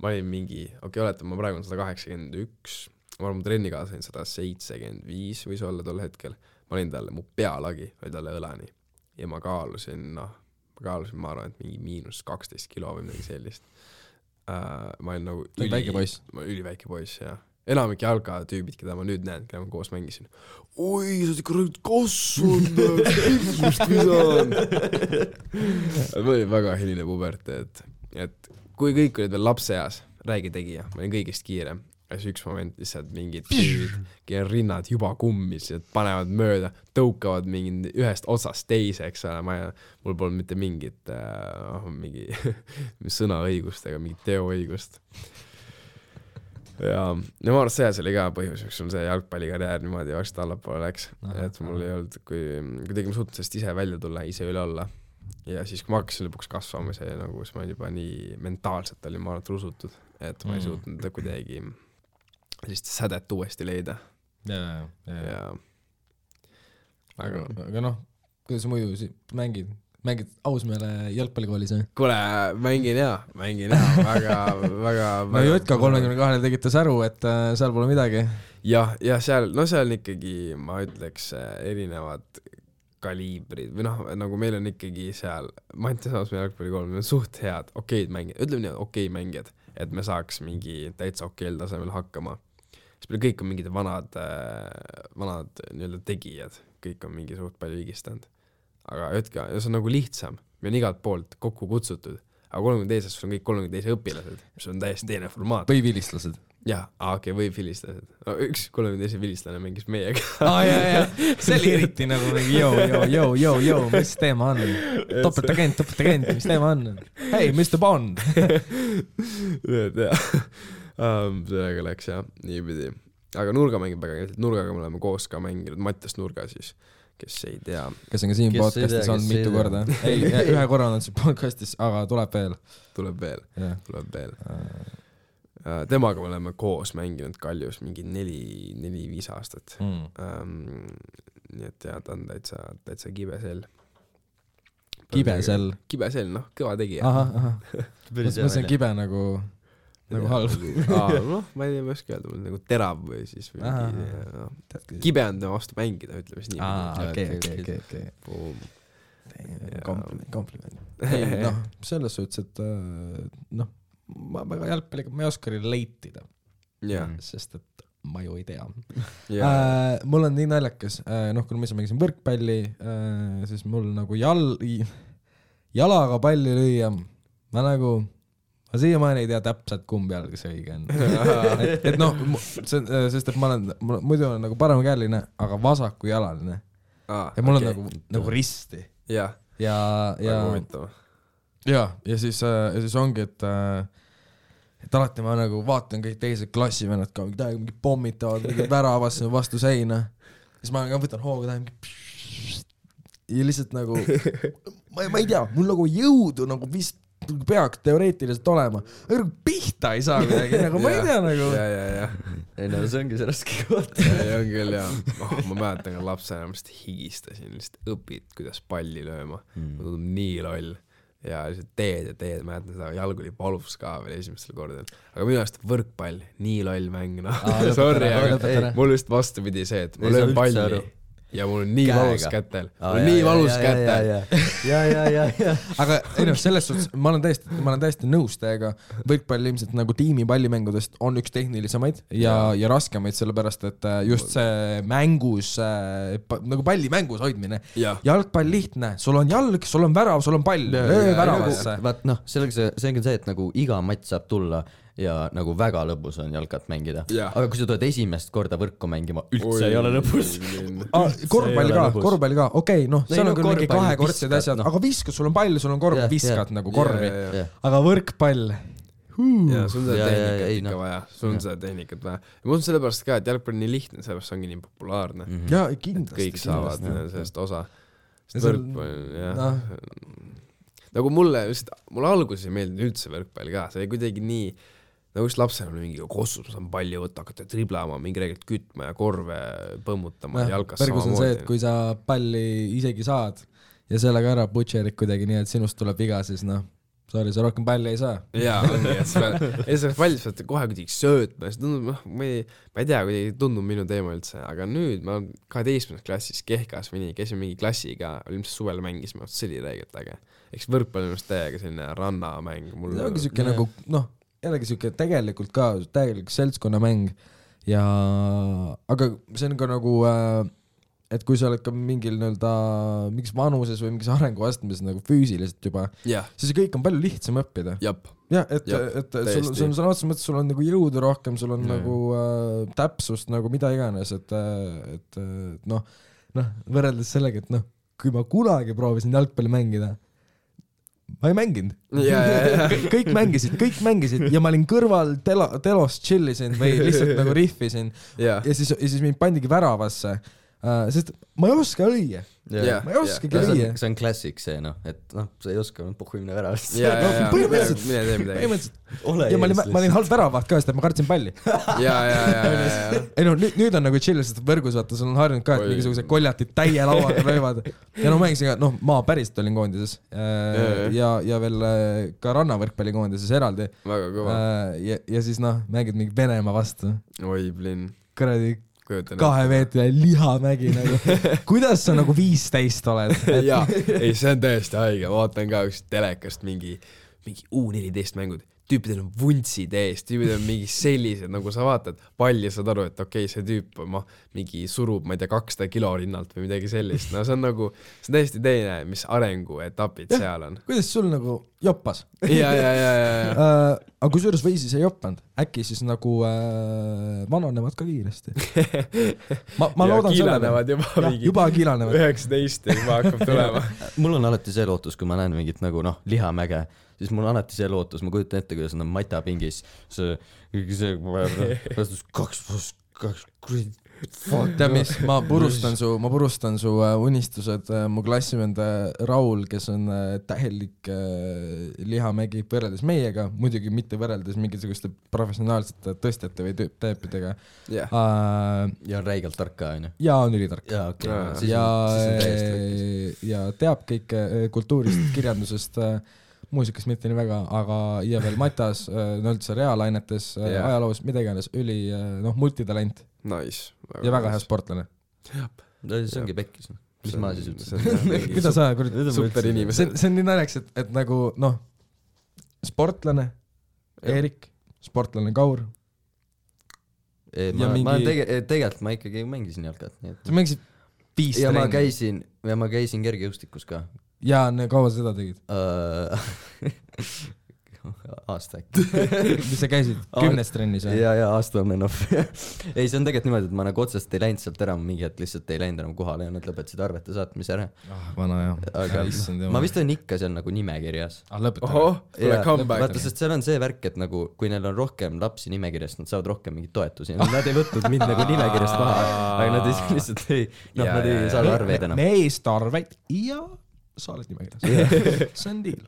olin mingi, oletame, ma praegu on 181, ma olen mu trennikaasa 175 võis olla tol hetkel. Ma olin talle, mu pealagi oli talle õlani ja ma kaalusin, ma arvan, et mingi -12 kilo või midagi sellist. Ma olin nagu üliväike poiss, jah. Enamik jalgatüübid, keda ma nüüd näen, keda ma koos mängisin. Oi, sa oled ikka kasvanud, pikkust visanud. Ma olin väga hiline puberteed, et kui kõik olid veel lapseeas, räägi tegija, ma olin kõigist kiirem. Ja siis üks moment lihtsalt mingid tüübid, kelle rinnad juba kummis, panevad mööda, tõukavad mingi ühest otsast teise, eks ole, mul polnud mitte mingit mingi sõnaõigust ega mingit teoõigust. Ja ma arvan, see oli ka põhjus, miks on see jalgpallikarjäär niimoodi varsti allapoole läks, et mul ei olnud, kui tegime suutnud sellest ise välja tulla, ise üle olla. Ja siis, kui ma hakkasin lõpuks kasvama, see nagu, siis ma juba nii mentaalselt olin ma arvan rusutud, et ma ei suutnud kuidagi sellist sädet uuesti leida. Ja. Aga noh, kuidas muidu mängid ausmeele jalgpallikoolis, või? Kuule, mängin hea, väga no Jutka 32 tegite säru, et seal pole midagi. Ja seal on ikkagi, ma ütleks, erinevad kaliibrid, või noh, nagu meil on ikkagi seal, ma ei tea ausmeele jalgpallikool, meil on suht head, okeid mängijad, ütleme nii, okei mängijad, et me saaks mingi täitsa okeel tasemel hakkama. Siis meil kõik on mingid vanad nii-öelda tegijad, kõik on mingi suht palju vigistanud. Aga Jutka, see on nagu lihtsam, me on igalt poolt kokku kutsutud, aga 32 on kõik 32 õpilased, mis on täiesti teine formaat. Või vilistlased. Jah, okei, või vilistlased. No, üks 32 vilistlane mängis meiega. See oli eriti nagu jõu, mis teema on? Topetagent, mis teema on? Hei, Mr. Bond! Sellega läks jah, niipidi. Aga nurga mängib väga, nurgaga me oleme koos ka mänginud, Mattias Nurga siis, kes ei tea. Kes on ka siin podcastis olnud mitu korda. Ei, ühe korra on siin podcastis, aga tuleb veel. Temaga me oleme koos mänginud Kaljus mingi 4-5 aastat. Nii et jah, ta on täitsa kibesel. Kibesel, noh, kõva tegija. Ma see on kibe nagu halb. Noh, ma ei oska öelda, nagu terav või siis kibe on tema vastu mängida, ütleme siis nii. Okei. Kompliment. Ei, noh, selles suhtes, et noh, ma väga jalgpalliga, ma ei oska relatida, sest et ma ju ei tea. Mul on nii naljakas, noh, kui ma ise mängisin võrkpalli, siis mul nagu jalaga palli lüüa, ma siiamaani ei tea täpselt, kumb jalg see õige on. et noh, sest et ma muidu olen nagu paremkäeline, aga vasakujalaline. Ja mul on nagu risti. Ja siis ongi, et alati ma nagu vaatan kõik teised klassivennad ka, mingi pommitavad, mingi väravasse vastu seina. Siis ma võtan hooga ja lihtsalt nagu, ma ei tea, mul nagu jõudu nagu vist peaks teoreetiliselt olema, aga pihta ei saa midagi, nagu ma ei tea nagu. Ei no see ongi see raske koht. Ei on küll jah, ma mäletan ka lapsena, ma lihtsalt higistasin, lihtsalt õpid, kuidas palli lööma, ma tundub nii loll ja lihtsalt teed, mäletan seda, jalg oli valus ka veel esimestel kordadel, aga minu arust võrkpall, nii loll mäng, sorry, aga mul just vastupidi see, et ma löön palli ja mul on nii valus kätel. Mul on nii valus kätel. Aga ei noh, selles suhtes ma olen täiesti nõus teiega. Võrkpall ilmselt nagu tiimipallimängudest on üks tehnilisemaid ja raskemaid, sellepärast, et just see mängus, nagu palli mängus hoidmine. Jalgpall lihtne, sul on jalg, sul on värav, sul on pall, väravasse. Vaat noh, see on see, et nagu iga matš saab tulla ja nagu väga lõbus on jalkat mängida. Aga kui sa tuled esimest korda võrku mängima, üldse ei ole lõbus. Korvpalli ka, okei, noh, seal on küll mingi kahekordsed asjad, aga viskad, sul on pall, sul on korv, viskad nagu korvi. Aga võrkpall. Ja sul on seda tehnikat vaja, sul on seda tehnikat vaja. Ja mul on sellepärast ka, et jalgpall on nii lihtne, sellepärast on nii populaarne. Ja kindlasti. Kõik saavad sellest osa. Võrkpall, jah. Nagu mulle alguses ei meeldinud üldse võrkpall ka, see oli kuidagi nii, nagu just lapsena oli mingi kossus, ma saan palli võtta, hakata triblama, mingi reegelt kütma ja korve põmmutama ja jalkas samamoodi. Pergus on see, et kui sa palli isegi saad ja sellega ära butcherid kuidagi nii, et sinust tuleb viga, siis noh, sorry, sa rohkem palli ei saa. Jaa, ongi, et sa palli saad kohe kuidagi söötma, siis tundub, ma ei tea, kuidagi tundub minu teema üldse, aga nüüd ma 12. klassis Kehkas või nii, käisin mingi klassiga, ilmselt suvel mängisime, see oli reegelt äge. Eks võrkpall on just täiega selline rannamäng. See ongi süke nagu, noh, jällegi süke tegelikult ka, täielik seltskonnamäng ja, aga see on ka nagu, et kui sa oled ka mingil mingis vanuses või mingis arenguastmes nagu füüsiliselt juba, siis kõik on palju lihtsam õppida. Ja, et sul on otseses mõttes, sul on nagu jõudu rohkem, sul on nagu täpsust nagu mida iganes, et noh, võrreldes sellega, et noh, kui ma kunagi proovisin jalgpalli mängida, ma ei mänginud. Kõik mängisid ja ma olin kõrval telos chillisin või lihtsalt nagu rihvisin ja siis mind pandigi väravasse, sest ma ei oska lüüa. Ma ei oskagi lüüa. See on klassik see, noh, et noh, sa ei oska puhku minna väravast. Põhimõtteliselt. Ja ma olin halb väravaht ka, sest et ma kartsin palli. Ei no, nüüd on nagu chill, sest võrgus vaata, sul on harjunud ka, et mingisugused koljatid täie lauaga löövad. Ja no mängisin ka, noh, ma päriselt olin koondises ja veel ka rannavõrkpalli koondises eraldi. Väga kõva. Ja siis noh, mängid mingi Venemaa vastu. Oi, blin. Kuradi 2 meetri lihamägi nagu. Kuidas sa nagu 15 oled? Jaa, ei, see on tõesti haige. Vaatan ka üks telekast mingi U14 mängud. Tüüpidel on vuntsid eest, tüüpidel on mingi sellised, nagu sa vaatad palli, saad aru, et okei, see tüüp mingi surub, ma ei tea, 200 kilo rinnalt või midagi sellist. No see on nagu, see on täiesti teine, mis arenguetapid seal on. Kuidas sul nagu joppas? Aga kui suures või siis ei joppanud, äkki siis nagu vananevad ka kiiresti. Ma loodan kiilanevad juba kiilanevad. 19 juba hakkab tulema. Mul on alati see lootus, kui ma näen mingit nagu noh, lihamäge, siis mul on alati see lootus, ma kujutan ette, kuidas on matapingis see 2+2 Tead mis, ma purustan su unistused, mu klassivend Raul, kes on tähelik lihamägi võrreldes meiega, muidugi mitte võrreldes mingisuguste professionaalsete tõstjate või teepidega. Ja on räigelt tark ka, on ju? Ja on ülitark. Ja teab kõik kultuurist, kirjandusest, muusikast mitte nii väga, aga ja veel matas, üldse reaalainetes, ajaloos, mida iganes, multitalent. Nice. Ja väga hea sportlane. See ongi pekkis. Mis ma siis ütlesin? Mida sa super inimesed. See on nii naljaks, et nagu, noh, sportlane Eerik, sportlane Kaur. Tegelikult ma ikkagi mängisin jalkat. Sa mängisid 5 trenni. Ja ma käisin kergejõustikus ka. Ja kaua seda tegid? Aasta äkki. Mis sa käisid? 10 trennis? Ja aasta on enough. Ei, see on tegelikult niimoodi, et ma nagu otsest ei läinud sealt ära, mingi hetk lihtsalt ei läinud enam kohale ja nad lõpetasid arvete saatmise ära. Vana jah. Aga ma vist olen ikka seal nagu nimekirjas. Vaata, sest seal on see värk, et nagu kui neil on rohkem lapsi nimekirjast, nad saavad rohkem mingit toetusi. Nad ei võtnud mind nagu nimekirjast maha, aga nad lihtsalt ei saada arveid enam. Meest arveid ja sa oled nimekirjas. See on deal.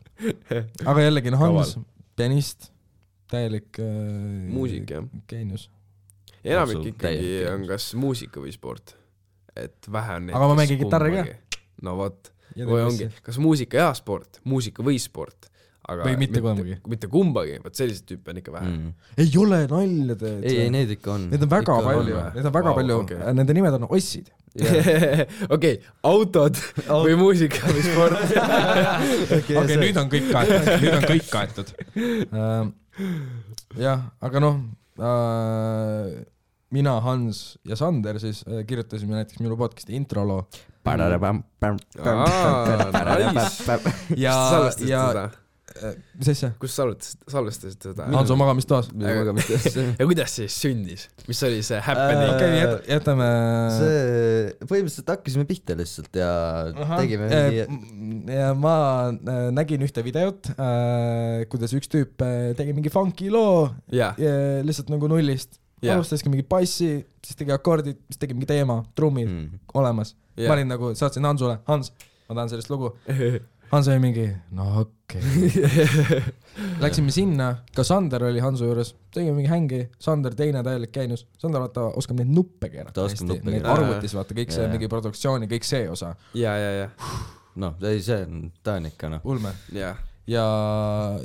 Aga jällegi, Hans, pianist, täielik muusik, jah. Geenius. Enamik ikkagi on kas muusika või sport. Et vähe on neid. Aga ma mängin kitarri ka. No vot. Või ongi, kas muusika ja sport, muusika või sport. Aga või mitte kumbagi. Mitte kumbagi, võt sellised tüüpe on ikka vähe. Ei ole nalja teed. Ei, need ikka on. Need on väga palju, need on väga palju, nende nimed on ossid. Okei, autod või muusika või sport. Okei, nüüd on kõik kaetud. Jah, aga noh, mina, Hans ja Sander siis kirjutasime näiteks minu podcasti introloo. Ja mis asja? Kus salvestasid seda? Hanso magamistoas. Ja kuidas siis sündis? Mis oli see happening? Okei, jätame... Põhimõtteliselt hakkasime pihta lihtsalt ja tegime mingi... Ja ma nägin ühte videot, kuidas üks tüüp tegi mingi funky loo lihtsalt nagu nullist. Alustaski mingi bassi, siis tegi akordid, siis tegi mingi teema, trummid olemas. Ma olin nagu, saatsin Hansule, Hans, ma tahan sellest lugu. Hans oli mingi, no okei. Läksime sinna, ka Sander oli Hansu juures, tegime mingi hängi, Sander teine täielik käinus. Sander vaata, oskab neid nuppe keerata hästi, neid arvutis vaata, kõik see mingi produktsiooni, kõik see osa. Ja. No, ta on ikka, noh. Ulme. Ja.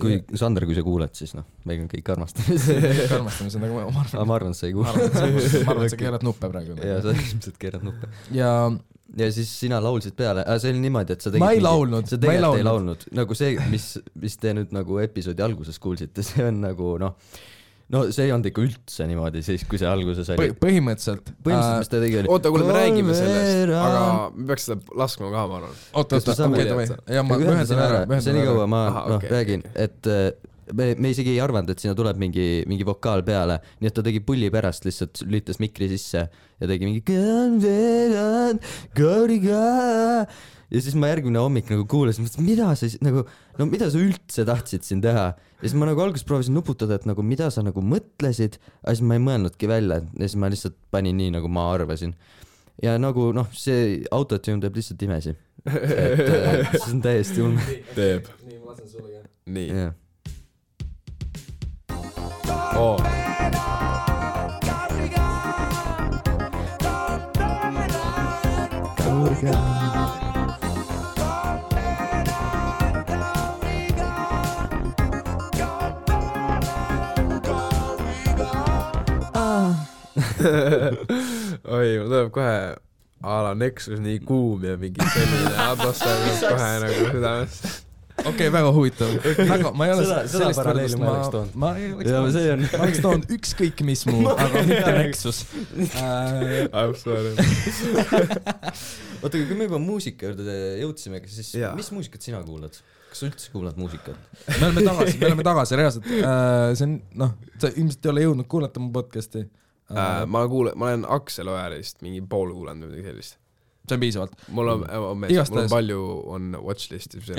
Kui Sander, kui sa kuuled, siis noh, meil on kõik armastame. Kõik armastame, see on nagu ma arvan, et sa ei kuule. Ma arvan, et sa keerad nuppe praegu. Ja, sa ilmselt keerad nuppe. Ja siis sina laulsid peale, see oli niimoodi, et sa tegid... Ma ei laulnud. Sa tegelikult ei laulnud. Nagu see, mis te nüüd nagu episoodi alguses kuulsite, see on nagu, no see ei olnud ikka üldse niimoodi, siis kui see alguses oli. Põhimõtteliselt. Mis te tegi oli... Oota, kuule, me räägime sellest, aga me peaks seda laskma ka, ma arvan. Oota, ja ma ühendan ära. See nii kaua ma räägin, et... Me isegi ei arvanud, et sinna tuleb mingi vokaal peale, nii et ta tegi pulli pärast lihtsalt lülitas mikri sisse ja tegi mingi ja siis ma järgmine hommik nagu kuulasin, mida sa üldse tahtsid siin teha ja siis ma nagu alguses proovisin nuputada, et nagu mida sa nagu mõtlesid, aga siis ma ei mõelnudki välja ja siis ma lihtsalt panin nii, nagu ma arvasin ja nagu noh, see autotune teeb lihtsalt imesi, et see on täiesti ulme. Teeb. Nii, ma lasen sulle ka. Nii. Oi, mul tuleb kohe ala Nexus nii kuum ja mingi selline atmosfäär kohe nagu südamest. Okei, väga huvitav. Ma ei ole seda paralleeli ma oleks toonud. Ma oleks toonud ükskõik mis muu, aga mitte Nexus. I'm sorry. Oota, kui me juba muusika juurde jõudsime, siis mis muusikat sina kuulad? Kas sa üldse kuulad muusikat? Me oleme tagasi reaalselt. See on, noh, sa ilmselt ei ole jõudnud kuulata mu podcasti. Ma olen Aksel Ojalist mingi pool kuulanud või midagi sellist. See on piisavalt. Mul on palju on watchlistis,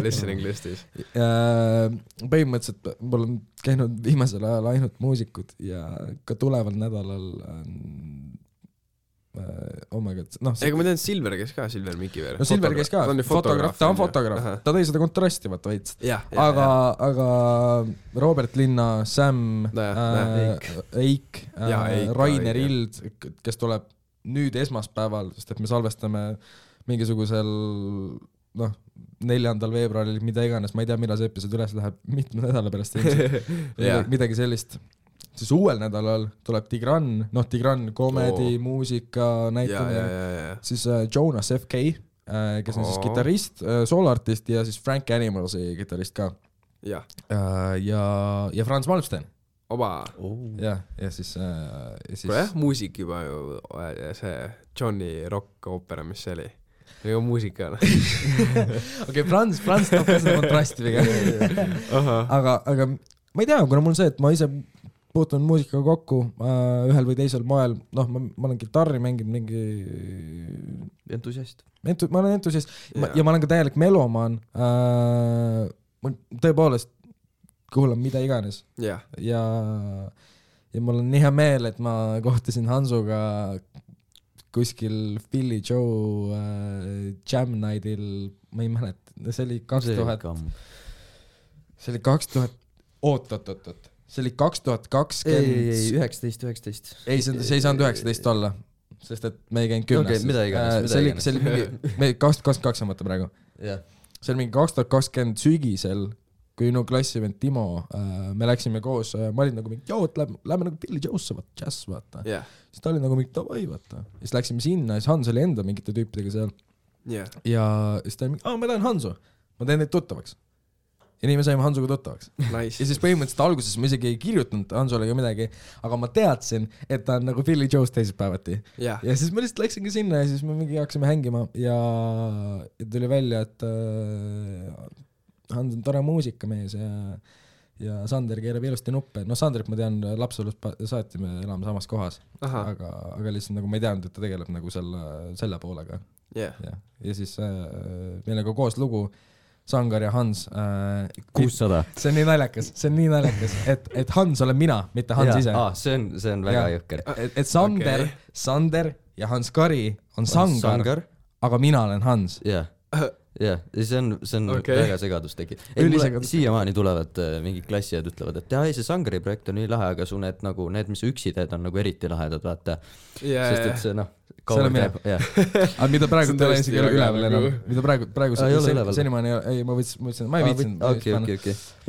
listening listis. Põhimõtteliselt mul on käinud viimasel ajal ainult muusikud ja ka tuleval nädalal oh my god, noh ega ma tean, Silver käis ka, Silver Mikiver. No Silver käis ka, ta on fotograaf, ta tõi seda kontrasti vaata veits. Aga Robert Linna, Sam, Eik, Rainer Ild, kes tuleb nüüd esmaspäeval, sest et me salvestame mingisugusel 4. veebruaril, mida iganes, ma ei tea, millal see episood üles läheb, mitme nädala pärast midagi sellist. Siis uuel nädalal tuleb Tigran, komedi, muusika näitamine, siis Jonas F.K., kes on siis kitarrist, sooloartist ja siis Frank Animalsi kitarist ka. Ja Franz Malmsten. Oba. Ja siis... Kuule, muusik juba ju, see Johnny Rock oopera, mis see oli? Või muusika. Okei, Franz toob seda kontrasti pigem. Aga ma ei tea, kuna mul see, et ma ise puutun muusikaga kokku ühel või teisel moel, ma olen kitarri mänginud mingi... Entusiast. Ma olen entusiast ja ma olen ka täielik melomaan. Ma tõepoolest kuulan mida iganes. Ja mul on nii hea meel, et ma kohtasin Hansuga kuskil Philly Joe Jam Nightil, ma ei mäleta, see oli 2000, see oli 2000, oot, see oli 2020. ei, 19. ei, see ei saanud 19 olla, sest et me ei käinud 10. Okei, mida iganes. See oli mingi, me 2022 on mõte praegu. See oli mingi 2020 sügisel, kui no klassivend Timo, me läksime koos, ma olin nagu mingi, joo, lähme nagu Billy Joe'sse, jazz, vaata. Siis ta oli nagu mingi, davai, vaata. Siis läksime sinna, siis Hans oli enda mingite tüüpidega seal. Ja siis ta oli mingi, ma tahan Hansu, ma teen neid tuttavaks. Ja nii me saime Hansuga tuttavaks. Nice. Ja siis põhimõtteliselt alguses ma isegi ei kirjutanud Hansule ka midagi, aga ma teadsin, et ta on nagu Billy Joe's teisipäevati. Ja siis ma lihtsalt läksingi sinna ja siis me mingi hakkasime hängima ja tuli välja, et Hans on tore muusikamees ja Sander keerab ilusti nuppe. No Sanderit ma tean, lapselust saati me elame samas kohas, aga lihtsalt nagu ma ei teadnud, et ta tegeleb nagu selle poolega. Ja siis meil on ka koos lugu Sangar ja Hans 600. See on nii naljakas, et Hans olen mina, mitte Hans ise. See on väga jõkker. Et Sander ja Hans Kari on Sangar, aga mina olen Hans. Ja see on väga segadus tekib. Siiamaani tulevad mingid klassijad ütlevad, et see Sangari projekt on nii lahe, aga su need, mis üksi teed, on nagu eriti lahedad, vaata. Sest et see see on mina. Aga mida praegu te olen isegi üleval enam. Mida praegu senimaani ei, ma võtsin, ma ei viitsin. Ma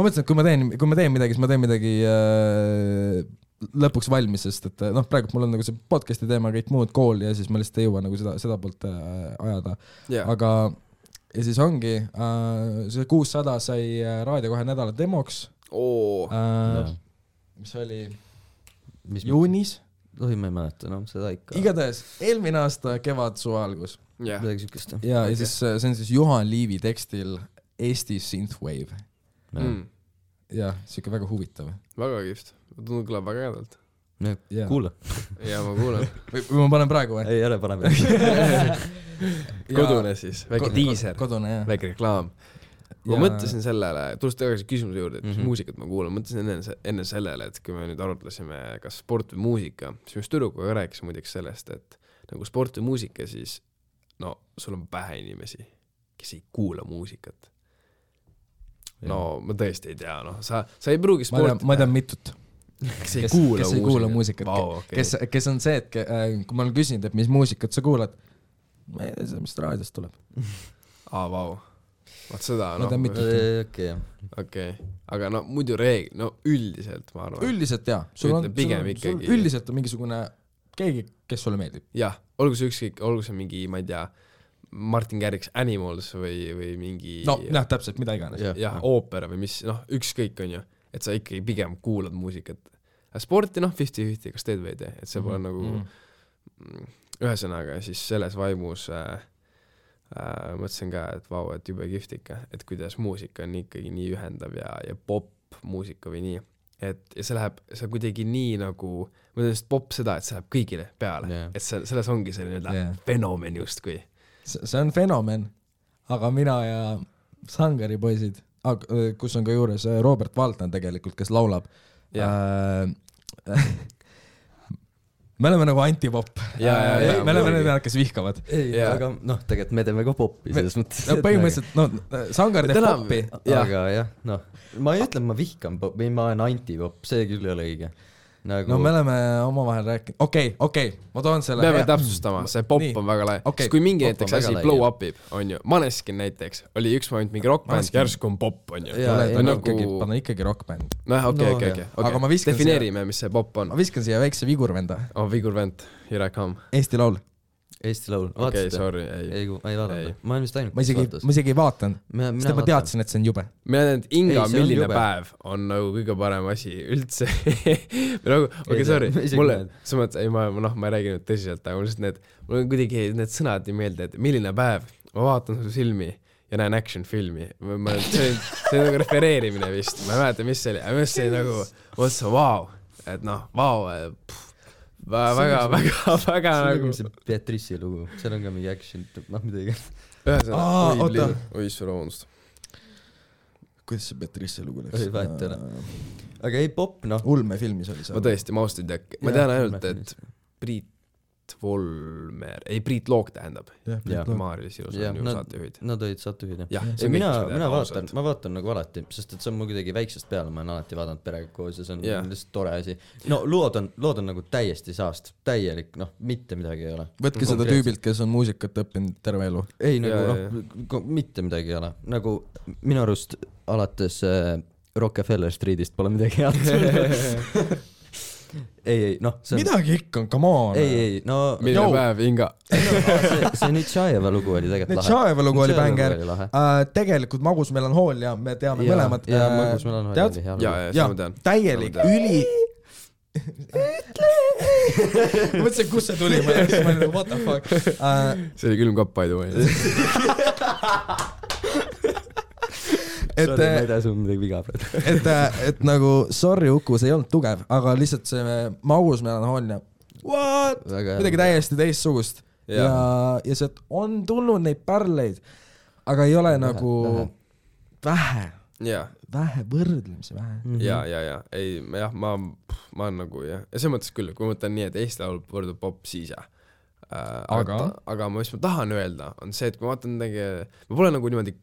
mõtlesin, et kui ma teen midagi, siis ma teen midagi lõpuks valmis, sest et praegu mul on nagu see podcasti teema, kõik muud kool ja siis ma lihtsalt ei jõua nagu seda poolt ajada. Aga ja siis ongi, see 600 sai raadio 2 nädala demoks, mis oli juunis. Tohi ma ei mäleta, seda ikka. Igatahes, eelmine aasta kevad suve algus. Midagi sükest. Ja siis see on siis Juhan Liivi tekstil Eesti Synthwave. Ja siuke väga huvitav. Väga kihvt. Tundub kõlab väga ädalt. Kuula. Ja ma kuulan. Või ma panen praegu või? Ei, ära pane. Kodune siis, väike diiser, väike reklaam. Ma mõtlesin sellele, tulles tagasi küsimuse juurde, et mis muusikat ma kuulan, mõtlesin enne sellele, et kui me nüüd arutlesime kas sport või muusika, siis just tüdrukuga rääkis muideks sellest, et nagu sport või muusika, siis no sul on pähe inimesi, kes ei kuula muusikat. No ma tõesti ei tea, sa ei pruugi sporti. Ma tean mitut. Kes ei kuula muusikat. Kes on see, et kui ma olen küsinud, et mis muusikat sa kuulad, ma ei tea, mis raadiost tuleb. Vau. Vaat seda, okei. Aga muidu üldiselt, ma arvan. Üldiselt, jaa. Üldiselt on mingisugune keegi, kes sulle meeldib. Jah, olgu see mingi, ma ei tea, Martin Garrix Animals või mingi... täpselt, mida iganes. Jah, oopera või mis, ükskõik on ju, et sa ikkagi pigem kuulad muusikat. Sporti, 50-50, kas teed või ei tee, et see pole nagu... Ühesõnaga, siis selles vaimus... mõtlesin ka, et vau, et jube kihvt ikka, et kuidas muusika on ikkagi nii ühendav ja pop-muusika või nii, et ja see kuidagi nii nagu, ma ütlen pop seda, et see läheb kõigile peale, et selles ongi selline fenomen justkui. See on fenomen, aga mina ja Sangari poisid, kus on ka juures Robert Valtman tegelikult, kes laulab, me oleme nagu antipop. Me oleme need, kes vihkavad. Aga tegelikult me teeme ka poppi selles mõttes. Põhimõtteliselt, Sangar teeb poppi. Aga jah, ma ei ütle, ma vihkan pop, või ma olen antipop, see küll ei ole õige. No me oleme omavahel rääkinud. Okei, ma toon selle. Peame täpsustama, see pop on väga lai. Siis kui mingi näiteks asi blow upib, on ju, Maneskin näiteks, oli üks moment mingi rockband, järsku on pop, on ju. Panna ikkagi rockband. Okei. Defineerime, mis see pop on. Ma viskan siia väikse vigurvenda. Vigurvend, here I come. Eesti laul. Okei, sorry. Ei, ma ei vaadanud. Ma olen vist ainult. Ma isegi ei vaatanud. Sest ma teadsin, et see on jube. Mina tean, et Inga milline päev on nagu kõige parem asi üldse. Okei, sorry. Mulle, ma ei räägi nüüd tõsiselt, aga mul on kuidagi need sõnad nii meelde, et milline päev, ma vaatan su silmi ja näen action filmi. See on nagu refereerimine vist. Ma ei mäleta, mis see oli. Aga mis see nagu, mõtlesin, vau. Et vau, väga nagu see Beatrice'i lugu, seal on ka mingi action, midagi. Oi, vabandust. Kuidas see Beatrice'i lugu läks? Aga ei pop, Ulme filmis oli see. Ma tõesti, ma austan tead, ma tean ainult, et Priit Priit Loog tähendab. Priit Loog. Maarja Silus on ju saatejuhid. Nad olid saatejuhid, jah. Ma vaatan nagu alati, sest et see on mul kuidagi väiksest peale, ma olen alati vaadanud perega koos ja see on lihtsalt tore asi. No lood on nagu täiesti saast, täielik, mitte midagi ei ole. Võtke seda tüübilt, kes on muusikat õppinud terve elu. Ei, nagu mitte midagi ei ole. Nagu minu arust alates Rockefeller Streetist pole midagi head. ei, see on... Midagi ikka on, come on. Ei, mille päev, Inga. see Nitšajeva lugu oli tegelikult lahe. Nitšajeva lugu oli bänger. Tegelikult Magus melanhool ja me teame mõlemad. Ja Magus melanhool oli hea lugu. Ja, ma tean. Täielik, üli... Ma mõtlesin, kus see tuli, ma olin nagu, what the fuck. See oli külmkapp, by the way. Sorry, ma ei tea sul midagi viga praegu. et nagu, sorry Uku, see ei olnud tugev, aga lihtsalt see Magus melanhoolia, what? Midagi täiesti teistsugust. Ja sealt on tulnud neid pärleid, aga ei ole nagu vähe võrdlemisi vähe. Ja. Ei, jah, ma olen nagu, jah. Ja see mõttes küll, kui ma mõtlen nii, et Eesti laul võrdub pop, siis jah. Aga mis ma tahan öelda, on see, et kui ma vaatan ma pole nagu niimoodi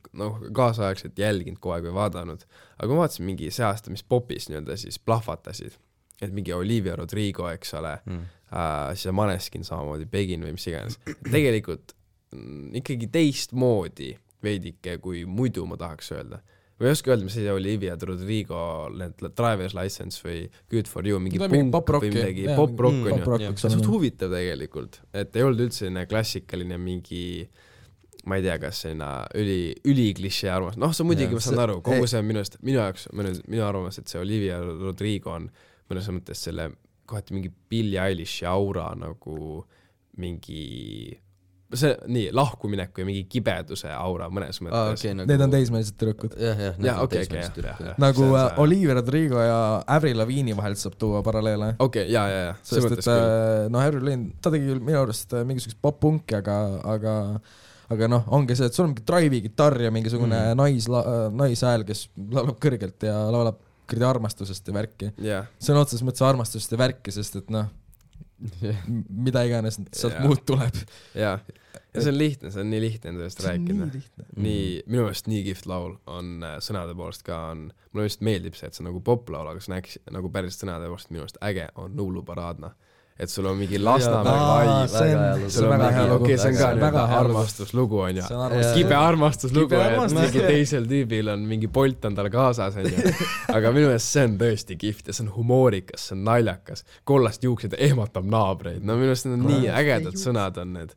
kaasaegselt jälginud kogu aeg või vaadanud, aga ma vaatasin mingi see aasta, mis popis nii-öelda siis plahvatasid, et mingi Olivia Rodrigo, eks ole, siis Maneskin samamoodi, Begin või mis iganes. Tegelikult ikkagi teistmoodi veidike, kui muidu ma tahaks öelda. Või ei oska öelda, mis see Olivia Rodrigo Driver's License või Good For You, mingi punk või midagi, pop-rock on ju. See on suht huvitav tegelikult, et ei olnud üldse klassikaline mingi, ma ei tea, kas selline üliklišee arvamus. See on muidugi, ma saan aru, kogu see on minu arvamus, et see Olivia Rodrigo on mõnes mõttes selle kohati mingi Billie Eilishi aura nagu mingi... see nii, lahkumineku ja mingi kibeduse aura mõnes mõttes. Need on teismelised tüdrukud. Nagu Olivia Rodrigo ja Avril Lavigne vahelt saab tuua paralleele. Ja. Sest et Avril Lavigne, ta tegi küll minu arust mingisugust pop-punki, aga ongi see, et sul on mingi drive-gitarr ja mingisugune naishääl, kes laulab kõrgelt ja laulab kõrdi armastusest ja värki. See on otses mõttes armastusest ja värki, sest et mida iganes sealt muud tuleb. Ja see on lihtne, see on nii lihtne endast rääkida. Minu meelest nii kihvt laul on sõnade poolest ka on, mulle just meeldib see, et see on nagu poplaul, aga see on nagu päris sõnade poolest minu meelest äge on Nuuluparaadna. Et sul on mingi Lasnamäe vibe. See on väga hea lugu. See on ka nüüd armastuslugu on ja kibe armastuslugu, et mingi teisel tüübil on mingi Bolt on tal kaasas on ju. Aga minu meelest see on tõesti kihvt ja see on humoorikas, see on naljakas. Kollast juuksed ehmatab naabreid. Minu meelest need on nii ägedad sõnad on need.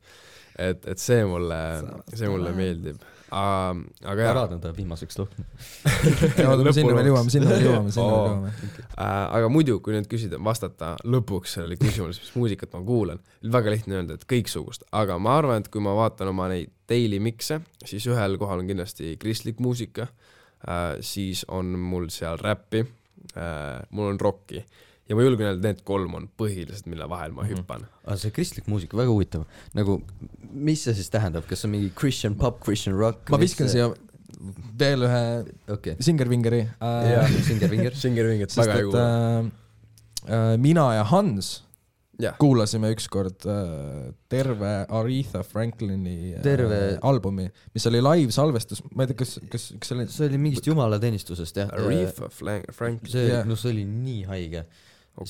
Et see mulle meeldib. Aga Paraadna ta viimaseks lõhn. Sinna veel jõuame. Aga muidu, kui nüüd küsida, vastata lõpuks sellele küsimus, mis muusikat ma kuulan, väga lihtne öelda, et kõiksugust. Aga ma arvan, et kui ma vaatan oma neid daily mixe, siis ühel kohal on kindlasti kristlik muusika, siis on mul seal räppi, mul on rocki. Ja ma julgen öelda, need 3 on põhilised, mille vahel ma hüppan. Aga see kristlik muusika, väga huvitav. Nagu, mis see siis tähendab? Kas on mingi Christian pop, Christian rock? Ma viskan siia veel ühe Singervingeri. Singervinger, väga ei kuule. Mina ja Hans kuulasime ükskord terve Aretha Franklini albumi, mis oli live-salvestus. Ma ei tea, kas see oli mingist jumalateenistusest, jah. Aretha Franklin. See oli nii haige. Ma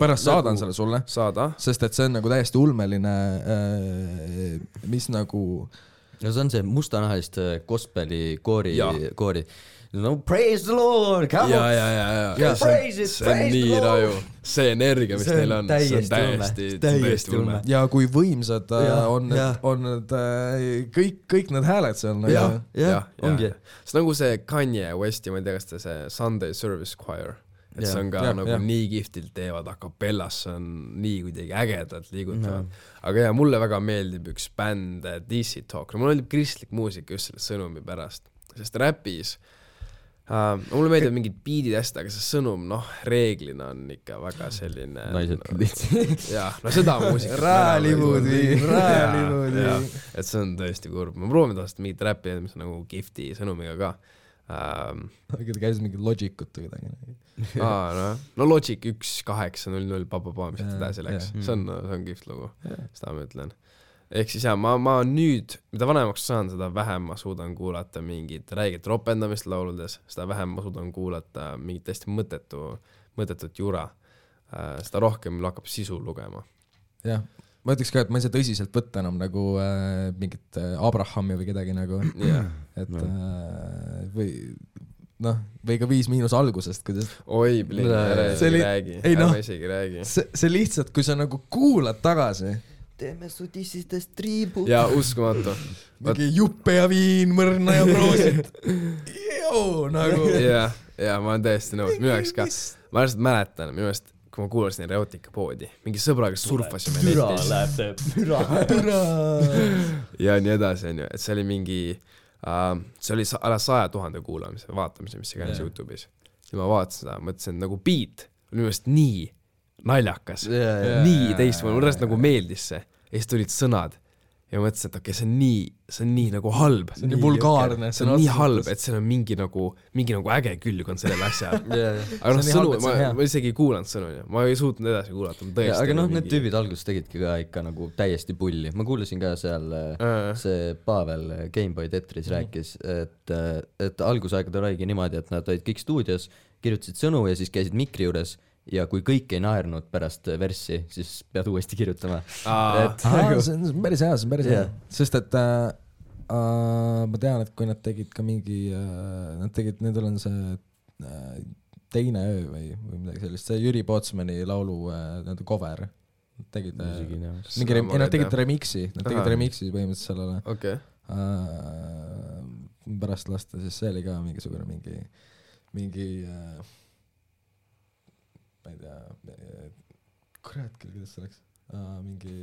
pärast saadan selle sulle. Saada. Sest et see on nagu täiesti ulmeline, mis nagu... No see on see mustanahalist gospeli koori. No praise the Lord, come on! Ja. Praise it, praise the Lord! Raju. See energia, mis neil on, see on täiesti ulme. Ja kui võimsad on need kõik need hääled seal. Ja, ongi. See nagu see Kanye West ja ma ei tea, kas ta see Sunday Service Choir. Et see on ka nagu nii kihvtilt teevad a capellas, see on nii kuidagi ägedalt liigutavad. Aga mulle väga meeldib üks bänd DC Talk. Mulle meeldib kristlik muusika just selle sõnumi pärast. Sest räpis mulle meeldib mingid beatid hästi, aga see sõnum, reeglina on ikka väga selline... Naised lihtsalt. Seda muusika. Räälivuudi. Et see on tõesti kurb. Ma proovin tahast mingit räppi, mis on nagu gifti sõnumiga ka. aga ta käis mingi Logicut või midagi. no Logic 1.8.0.0 mis edasi läks, see on kihvt lugu, seda ma ütlen. Ehk siis ma nüüd, mida vanemaks saan, seda vähem ma suudan kuulata mingit räiget ropendamist lauludes, seda vähem ma suudan kuulata mingit täiesti mõttetut jura, seda rohkem hakkab sisu lugema. Jah, ma ütleks ka, et ma ei saa tõsiselt võtta enam nagu mingit Abrahami või kedagi nagu, et või ka 5- algusest, kuidas oi, ära isegi räägi. See lihtsalt, kui sa nagu kuulad tagasi, teeme su tissistest triibu. Ja uskumatu. Mingi juppe ja viin, mõrna ja proosit. Nagu. Ja ma olen täiesti nõus, minu jaoks ka. Ma lihtsalt mäletan, minu jaoks, kui ma kuulasin Erotika-poodi, mingi sõbraga surfasime netis. Türa. Ja nii edasi, on ju, et see oli mingi, see oli ala 100,000 kuulamise, vaatamise, mis see käis YouTube'is. Ja ma vaatasin seda, mõtlesin, et nagu beat oli minu jaoks nii naljakas, nii teistmoodi, mulle nagu meeldis see. Ja siis tulid sõnad ja ma mõtlesin, et okei, see on nii nagu halb. See on nii vulgaarne. See on nii halb, et see on mingi nagu äge külg on sellel asjal. Aga sõnu, ma isegi ei kuulanud sõnu, ma ei suutnud edasi kuulata. Aga need tüübid alguses tegidki ka ikka nagu täiesti pulli. Ma kuulasin ka seal, see Pavel Gameboy Tetris rääkis, et algusaegade oligi niimoodi, et nad olid kõik stuudios, kirjutasid sõnu ja siis käisid mikri juures ja kui kõik ei naernud pärast verssi, siis pead uuesti kirjutama. See on päris hea, sest et ma tean, et kui nad tegid ka mingi, nendel on see Teine öö või midagi sellist, see Jüri Pootsmani laulu cover. Nad tegid remixi, põhimõtteliselt sellele. Okay. Pärast lasta, siis see oli ka mingisugune mingi ma ei tea, kurat küll, kuidas see läks, mingi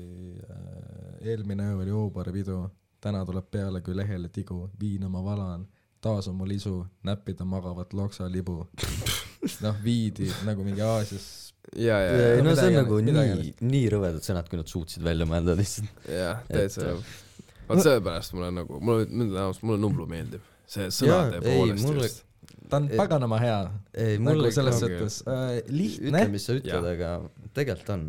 eelmine öö oli Oobari pidu, täna tuleb peale kui lehele tigu, viina ma valan, taas on mul isu, näppida magavat loksa libu. Viidi nagu mingi Aasias. Ja, no see on nagu nii rõvedad sõnad, kui nad suutsid välja mõelda lihtsalt. Jah, täitsa. Vaat sellepärast mulle Nublu meeldib. See sõnade poolest just. Ta on paganama hea. Nagu selles sõttes lihtne. Ütle, mis sa ütled, aga tegelikult on.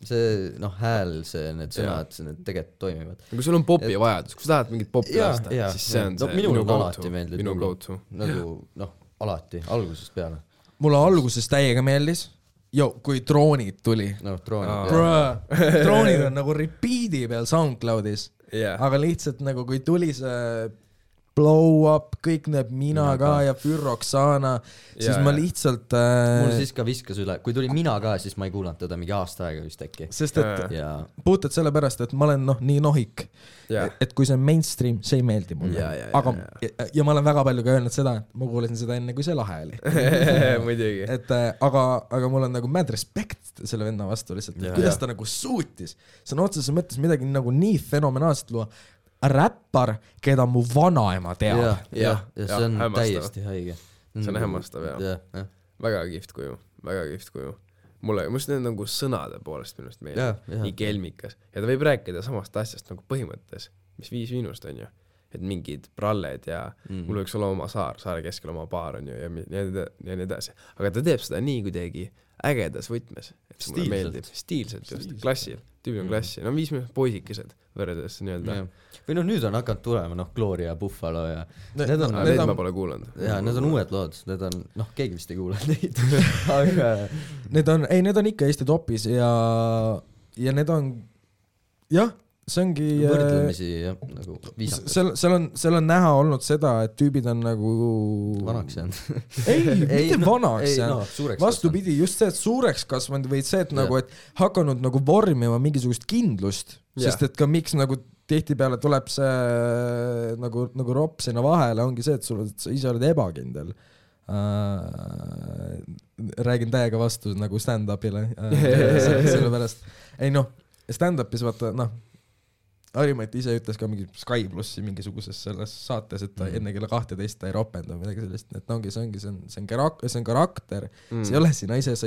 See hääl, need sõnad, need tegelikult toimivad. Kui sul on popi vajadus, kui sa tahad mingit popi lasta, siis see on see minu alati meeldib. Minu go-to. Nagu, alati, algusest peale. Mulle algusest täiega meeldis. Kui Droonid tuli. Droonid on nagu repeat'i peal SoundCloudis. Aga lihtsalt nagu kui tuli see Blow Up, kõik need Mina ka ja Fürroksana, siis ma lihtsalt mul siis ka viskas üle, kui tuli Mina ka, siis ma ei kuulanud teda mingi aasta aega vist äkki. Sest et puhtalt sellepärast, et ma olen nii nohik, et kui see on mainstream, see ei meeldi mulle. Ja ma olen väga palju ka öelnud seda, et ma kuulasin seda enne, kui see lahe oli. Muidugi. Aga mul on nagu mad respect selle venna vastu lihtsalt, kuidas ta nagu suutis. See on otseses mõttes midagi nagu nii fenomenaalselt luua. Räppar, keda mu vanaema teab. Ja see on täiesti haige. See on hämmastav, jah. Väga kihvt kuju. Mulle just need nagu sõnade poolest minust meeldib. Nii kelmikas. Ja ta võib rääkida samast asjast nagu põhimõttes, mis 5 miinust on ju. Et mingid pralled ja mul võiks olla oma saare keskel oma baar on ju ja nii edasi. Aga ta teeb seda nii kuidagi ägedas võtmes. Et mulle meeldib. Stiilselt just. Klassil. Tüübi on klassi. 5 miinust poisikesed võrredes nii-öelda. Või nüüd on hakanud tulema, Gloria ja Buffalo ja need ma pole kuulanud. Ja need on uued lood, need on, keegi vist ei kuulanud neid. Aga need on ikka Eesti topis ja need on, see ongi võrdlemisi, nagu viisakas. Seal on näha olnud seda, et tüübid on nagu vanaks jäänud. Mitte vanaks jäänud. Vastupidi, just see, et suureks kasvanud või see, et nagu, et hakanud nagu vormima mingisugust kindlust, sest et ka miks nagu tihtipeale tuleb see nagu ropp sinna vahele, ongi see, et sa ise oled ebakindel. Räägin täiega vastu nagu stand-upile. Sellepärast. Stand-upis vaata, Harimait ise ütles ka mingi Sky Plussi mingisuguses selles saates, et ta enne kella 12 ta ei ropenda midagi sellist, et see on karakter, see ei ole sina ise, sa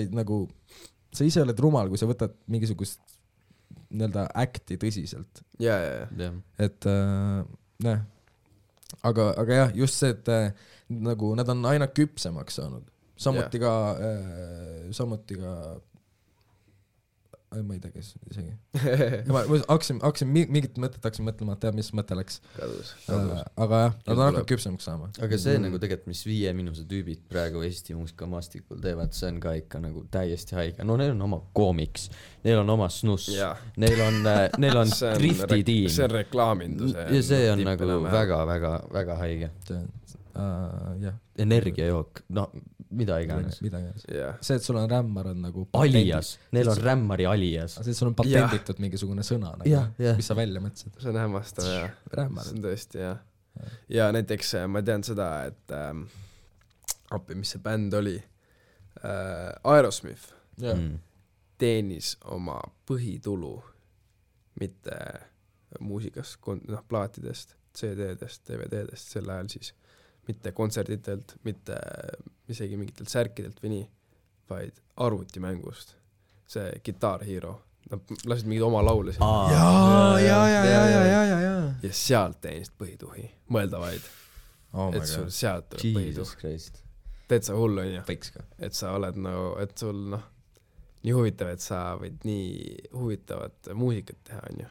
ise oled rumal, kui sa võtad mingisugust nii-öelda acti tõsiselt. Ja. Et aga jah, just see, et nagu nad on aina küpsemaks saanud. Samuti ka ma ei tea, kes isegi. ma hakkasin mingit mõtet mõtlema, et tead, mis mõte läks. Kadus. Aga jah, nad on hakanud küpsemaks saama. Aga see nagu tegelikult, mis 5 Miinuse tüübid praegu Eesti muusikamaastikul teevad, see on ka ikka nagu täiesti haige. No neil on oma koomiks, neil on oma snuss, neil on drifti tiim. See on reklaamindus. Ja see on nagu väga haige. Energiajook, no mida iganes. See, et sul on rämmar on nagu alias, neil on rämmari alias. See, et sul on patenditud mingisugune sõna nagu, mis sa välja mõtlesid. See on hämmastav, jah. See on tõesti, jah. Ja näiteks ma tean seda, et mis see bänd oli, Aerosmith teenis oma põhitulu mitte muusikast, plaatidest, CD-dest, DVD-dest sel ajal siis mitte kontserditelt, mitte isegi mingitelt särkidelt või nii, vaid arvutimängust. See Guitar Hero. Nad lasid mingid oma laule siin. Ja sealt teenist põhituhi. Mõelda vaid. Et sul sealt tuleb põhituh. Teed sa hullu, on ju? Et sa oled nagu, et sul nii huvitav, et sa võid nii huvitavat muusikat teha, on ju.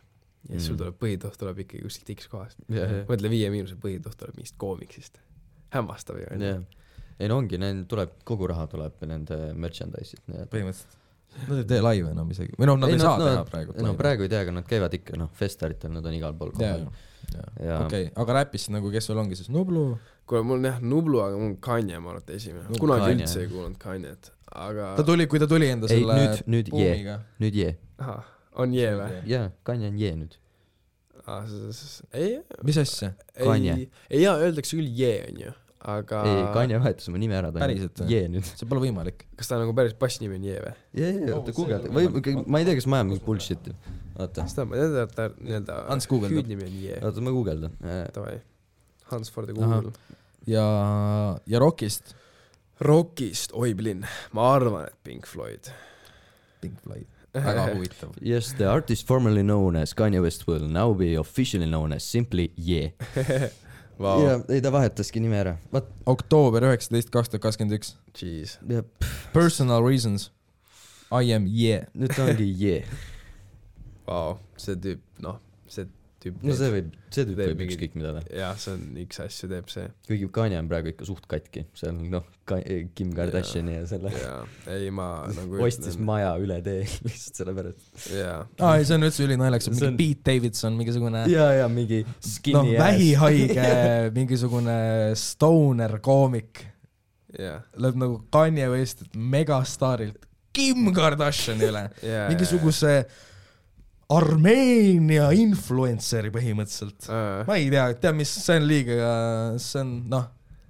Ja sul tuleb põhituh, tuleb ikkagi kuskilt X kohast. Mõtle 5 Miinuse põhituh tuleb mingist koomiksist. Hämmastav ju. Ei no ongi, tuleb, kogu raha tuleb nende merchandise'id. Põhimõtteliselt. Nad ei tee laive enam isegi. Või nad ei saa teha praegu. No praegu ei tea, aga nad käivad ikka, festaritel, nad on igal pool kohal. Okei, aga räpist nagu, kes sul ongi siis Nublu? Kuule, mul on jah Nublu, aga mul on Kanye, ma arvan, esimene. Kunagi üldse ei kuulnud Kanye't, aga... Kui ta tuli enda selle buumiga. Nüüd jee. Aha, on jee või? Jaa, Kanye on jee nüüd. Mis asja? Kanye. Ei, jaa, öeldakse küll jee, on ju, aga... Ei, Kanye vahetas oma nime ära, ta on jee nüüd. See pole võimalik. Kas ta nagu päris passnimi on jee või? Jee, oota, Google. Ma ei tea, kas ma ajan mingi bullshit'i. Oota. Seda ma tean, et ta nii-öelda hüüdnimi on jee. Oota, ma guugeldan. Tavai. Hans for the Google. Ja Rockist? Rockist, oi blin. Ma arvan, et Pink Floyd. Väga huvitav. Yes, the artist formerly known as Kanye West will now be officially known as simply Ye. Wow. Ja ei ta vahetaski nime ära. Oktoober 19, 2021. Jeez. Personal reasons. I am Ye. Nüüd ta ongi Ye. Wow, see tüüp, see tüüp võib ükskõik mida. Jah, see on üks asju teeb see. Kuigi Kanye on praegu ikka suht katki. See on Kim Kardashini ja selle. Ei, ma nagu ostis maja üle tee lihtsalt selle pärast. Ei, see on üldse ülinaljakas. Mingi Pete Davidson, mingisugune mingi skinny ass. Vähihaige, mingisugune stoner koomik. Läheb nagu Kanye West megastaarilt Kim Kardashini üle. Mingisuguse Armeenia influenceri põhimõtteliselt. Ma ei tea, mis see on liiga, see on,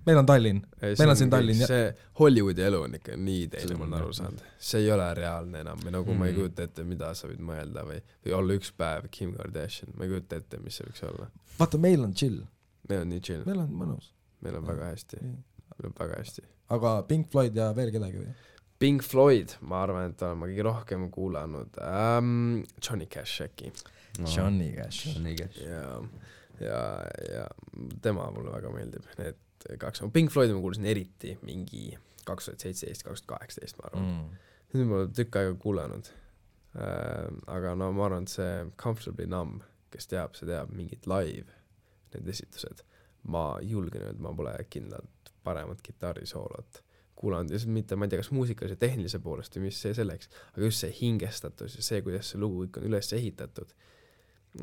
meil on Tallinn. Meil on siin Tallinn. See Hollywoodi elu on ikka nii teine, ma olen aru saanud. See ei ole reaalne enam. Või nagu ma ei kujuta ette, mida sa võid mõelda või olla üks päev Kim Kardashian. Ma ei kujuta ette, mis see võiks olla. Vaata, meil on chill. Meil on nii chill. Meil on mõnus. Meil on väga hästi. Aga Pink Floyd ja veel kedagi või? Pink Floyd, ma arvan, et olen ma kõige rohkem kuulanud Johnny Cash äkki. Johnny Cash. Ja tema mulle väga meeldib. Need 2. Pink Floyd ma kuulasin eriti mingi 2017, 2018, ma arvan. Nüüd ma olen tükk aega kuulanud. Aga ma arvan, et see Comfortably Numb, kes teab, see teab mingit live, need esitused. Ma julgen öelda, ma pole kindlalt paremat kitarrisoolot kuulanud, ja mitte, ma ei tea, kas muusikas ja tehnilise poolest või mis see selleks, aga just see hingestatus ja see, kuidas see lugu ikka on üles ehitatud,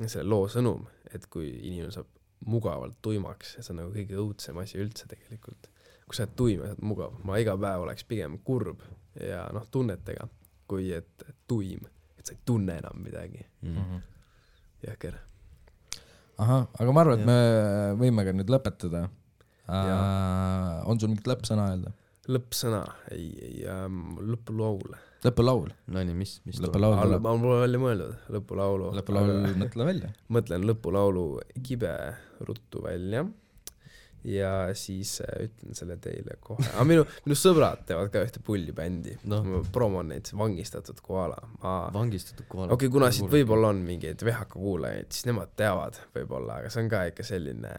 selle loo sõnum, et kui inimene saab mugavalt tuimaks, ja see on nagu kõige õudsem asi üldse tegelikult. Kui sa oled tuim ja sa oled mugav, ma iga päev oleks pigem kurb ja tunnetega, kui et tuim, et sa ei tunne enam midagi. Jõhker. Aha, aga ma arvan, et me võime ka nüüd lõpetada. On sul mingit lõppsõna öelda? Lõppsõna, ei, lõpulaul. Lõpulaul? No nii, mis lõpulaul? Ma pole välja mõeldud, lõpulaulu. Lõpulaul, mõtle välja. Mõtlen lõpulaulu kibe ruttu välja ja siis ütlen selle teile kohe. Aga minu sõbrad teevad ka ühte pullibändi. Ma promon neid Vangistatud koala. Vangistatud koala. Okei, kuna siit võib-olla on mingeid VHK kuulajaid, siis nemad teavad võib-olla, aga see on ka ikka selline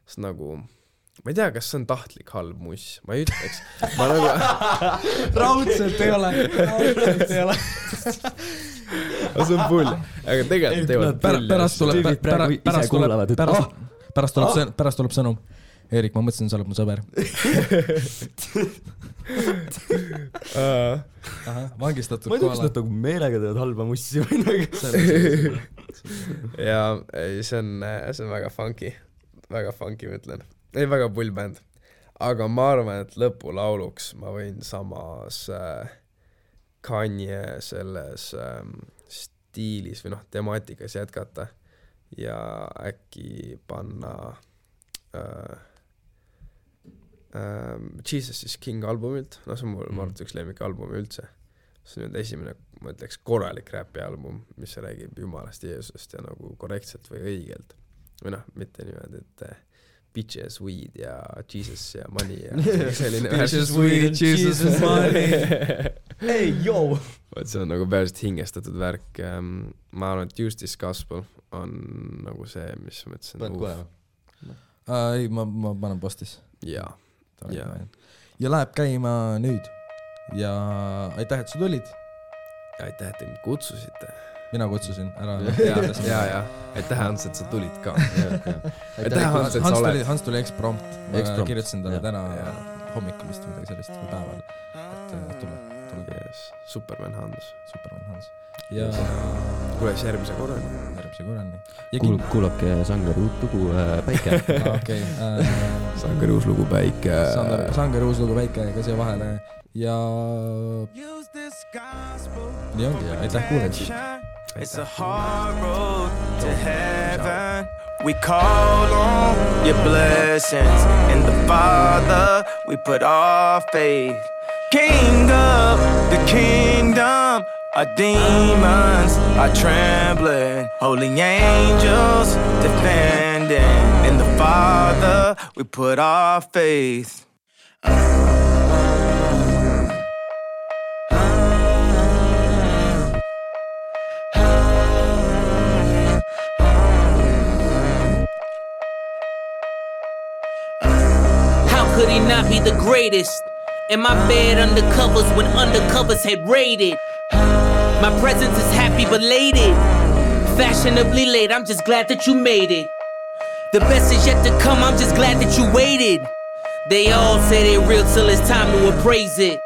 sest nagu ma ei tea, kas see on tahtlik halb muss, ma ei ütleks. Ma nagu... raudselt ei ole. See on pull. Aga tegelikult teevad pärast tuleb sõnum. Eerik, ma mõtlesin, sa oled mu sõber. Vangistatud kohale. Ma ei tea, kas nad meelega teevad halba mussi või nagu. Ja see on väga funky. Väga funky, ma ütlen. Ei, väga pull bänd. Aga ma arvan, et lõpulauluks ma võin samas Kanye selles stiilis või temaatikas jätkata ja äkki panna Jesus is King albumilt, see on mul arvates üks lemmik albumi üldse. See on esimene, ma ütleks, korralik räpi album, mis räägib Jumalast, Jeesusest ja nagu korrektselt või õigelt. Või mitte niimoodi, et bitches, weed ja Jesus ja money ja selline bitches, weed, Jesus, money. Hey, yo! See on nagu päriselt hingestatud värk. Ma arvan, et Just This Gospel on nagu see, mis ma mõtlesin. Paned kohe? Ei, ma panen postis. Jaa. Ja läheb käima nüüd. Ja aitäh, et sa tulid. Ja aitäh, et te mind kutsusite. Mina kutsusin ära. Ja. Aitäh, Hans, et sa tulid ka. Aitäh, Hans, et sa oled. Hans tuli eksprompt. Ma kirjutasin talle täna hommikul vist midagi sellist või päeval. Et tule. Superman Hans. Ja kuules järgmise korrani. Kuulake Sangari uut lugu Päike. Okay. Sangari uus lugu Päike. Sangari uus lugu Päike ka siia vahele. Ja nii ongi. Aitäh kuulamist. It's a hard road to heaven. We call on your blessings. In the Father we put our faith. King of the kingdom, our demons are trembling. Holy angels defending. In the Father we put our faith. How could he not be the greatest? In my bed undercovers when undercovers had raided. My presence is happy belated. Fashionably late, I'm just glad that you made it. The best is yet to come, I'm just glad that you waited. They all say they real till it's time to appraise it.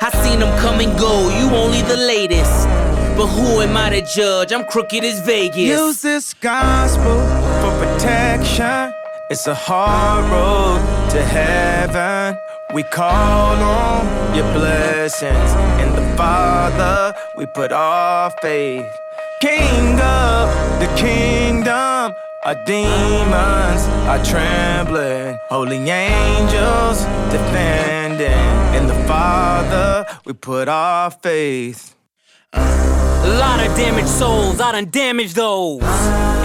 I seen them come and go, you only the latest. But who am I to judge? I'm crooked as Vegas. Use this gospel for protection. It's a hard road to heaven. We call on your blessings. In the Father we put our faith. King of the kingdom, our demons are trembling. Holy angels defending. In the Father we put our faith. A lot of damaged souls, I done damaged those.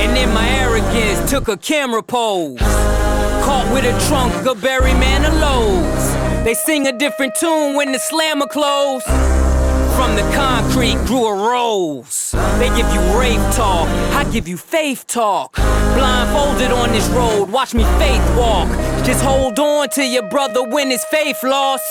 And in my arrogance took a camera pose. Caught with a trunk, a berry man of lows. They sing a different tune when the slammer close. From the concrete grew a rose. They give you rave talk, I give you faith talk. Blindfolded on this road, watch me faith walk. Just hold on to your brother when his faith lost.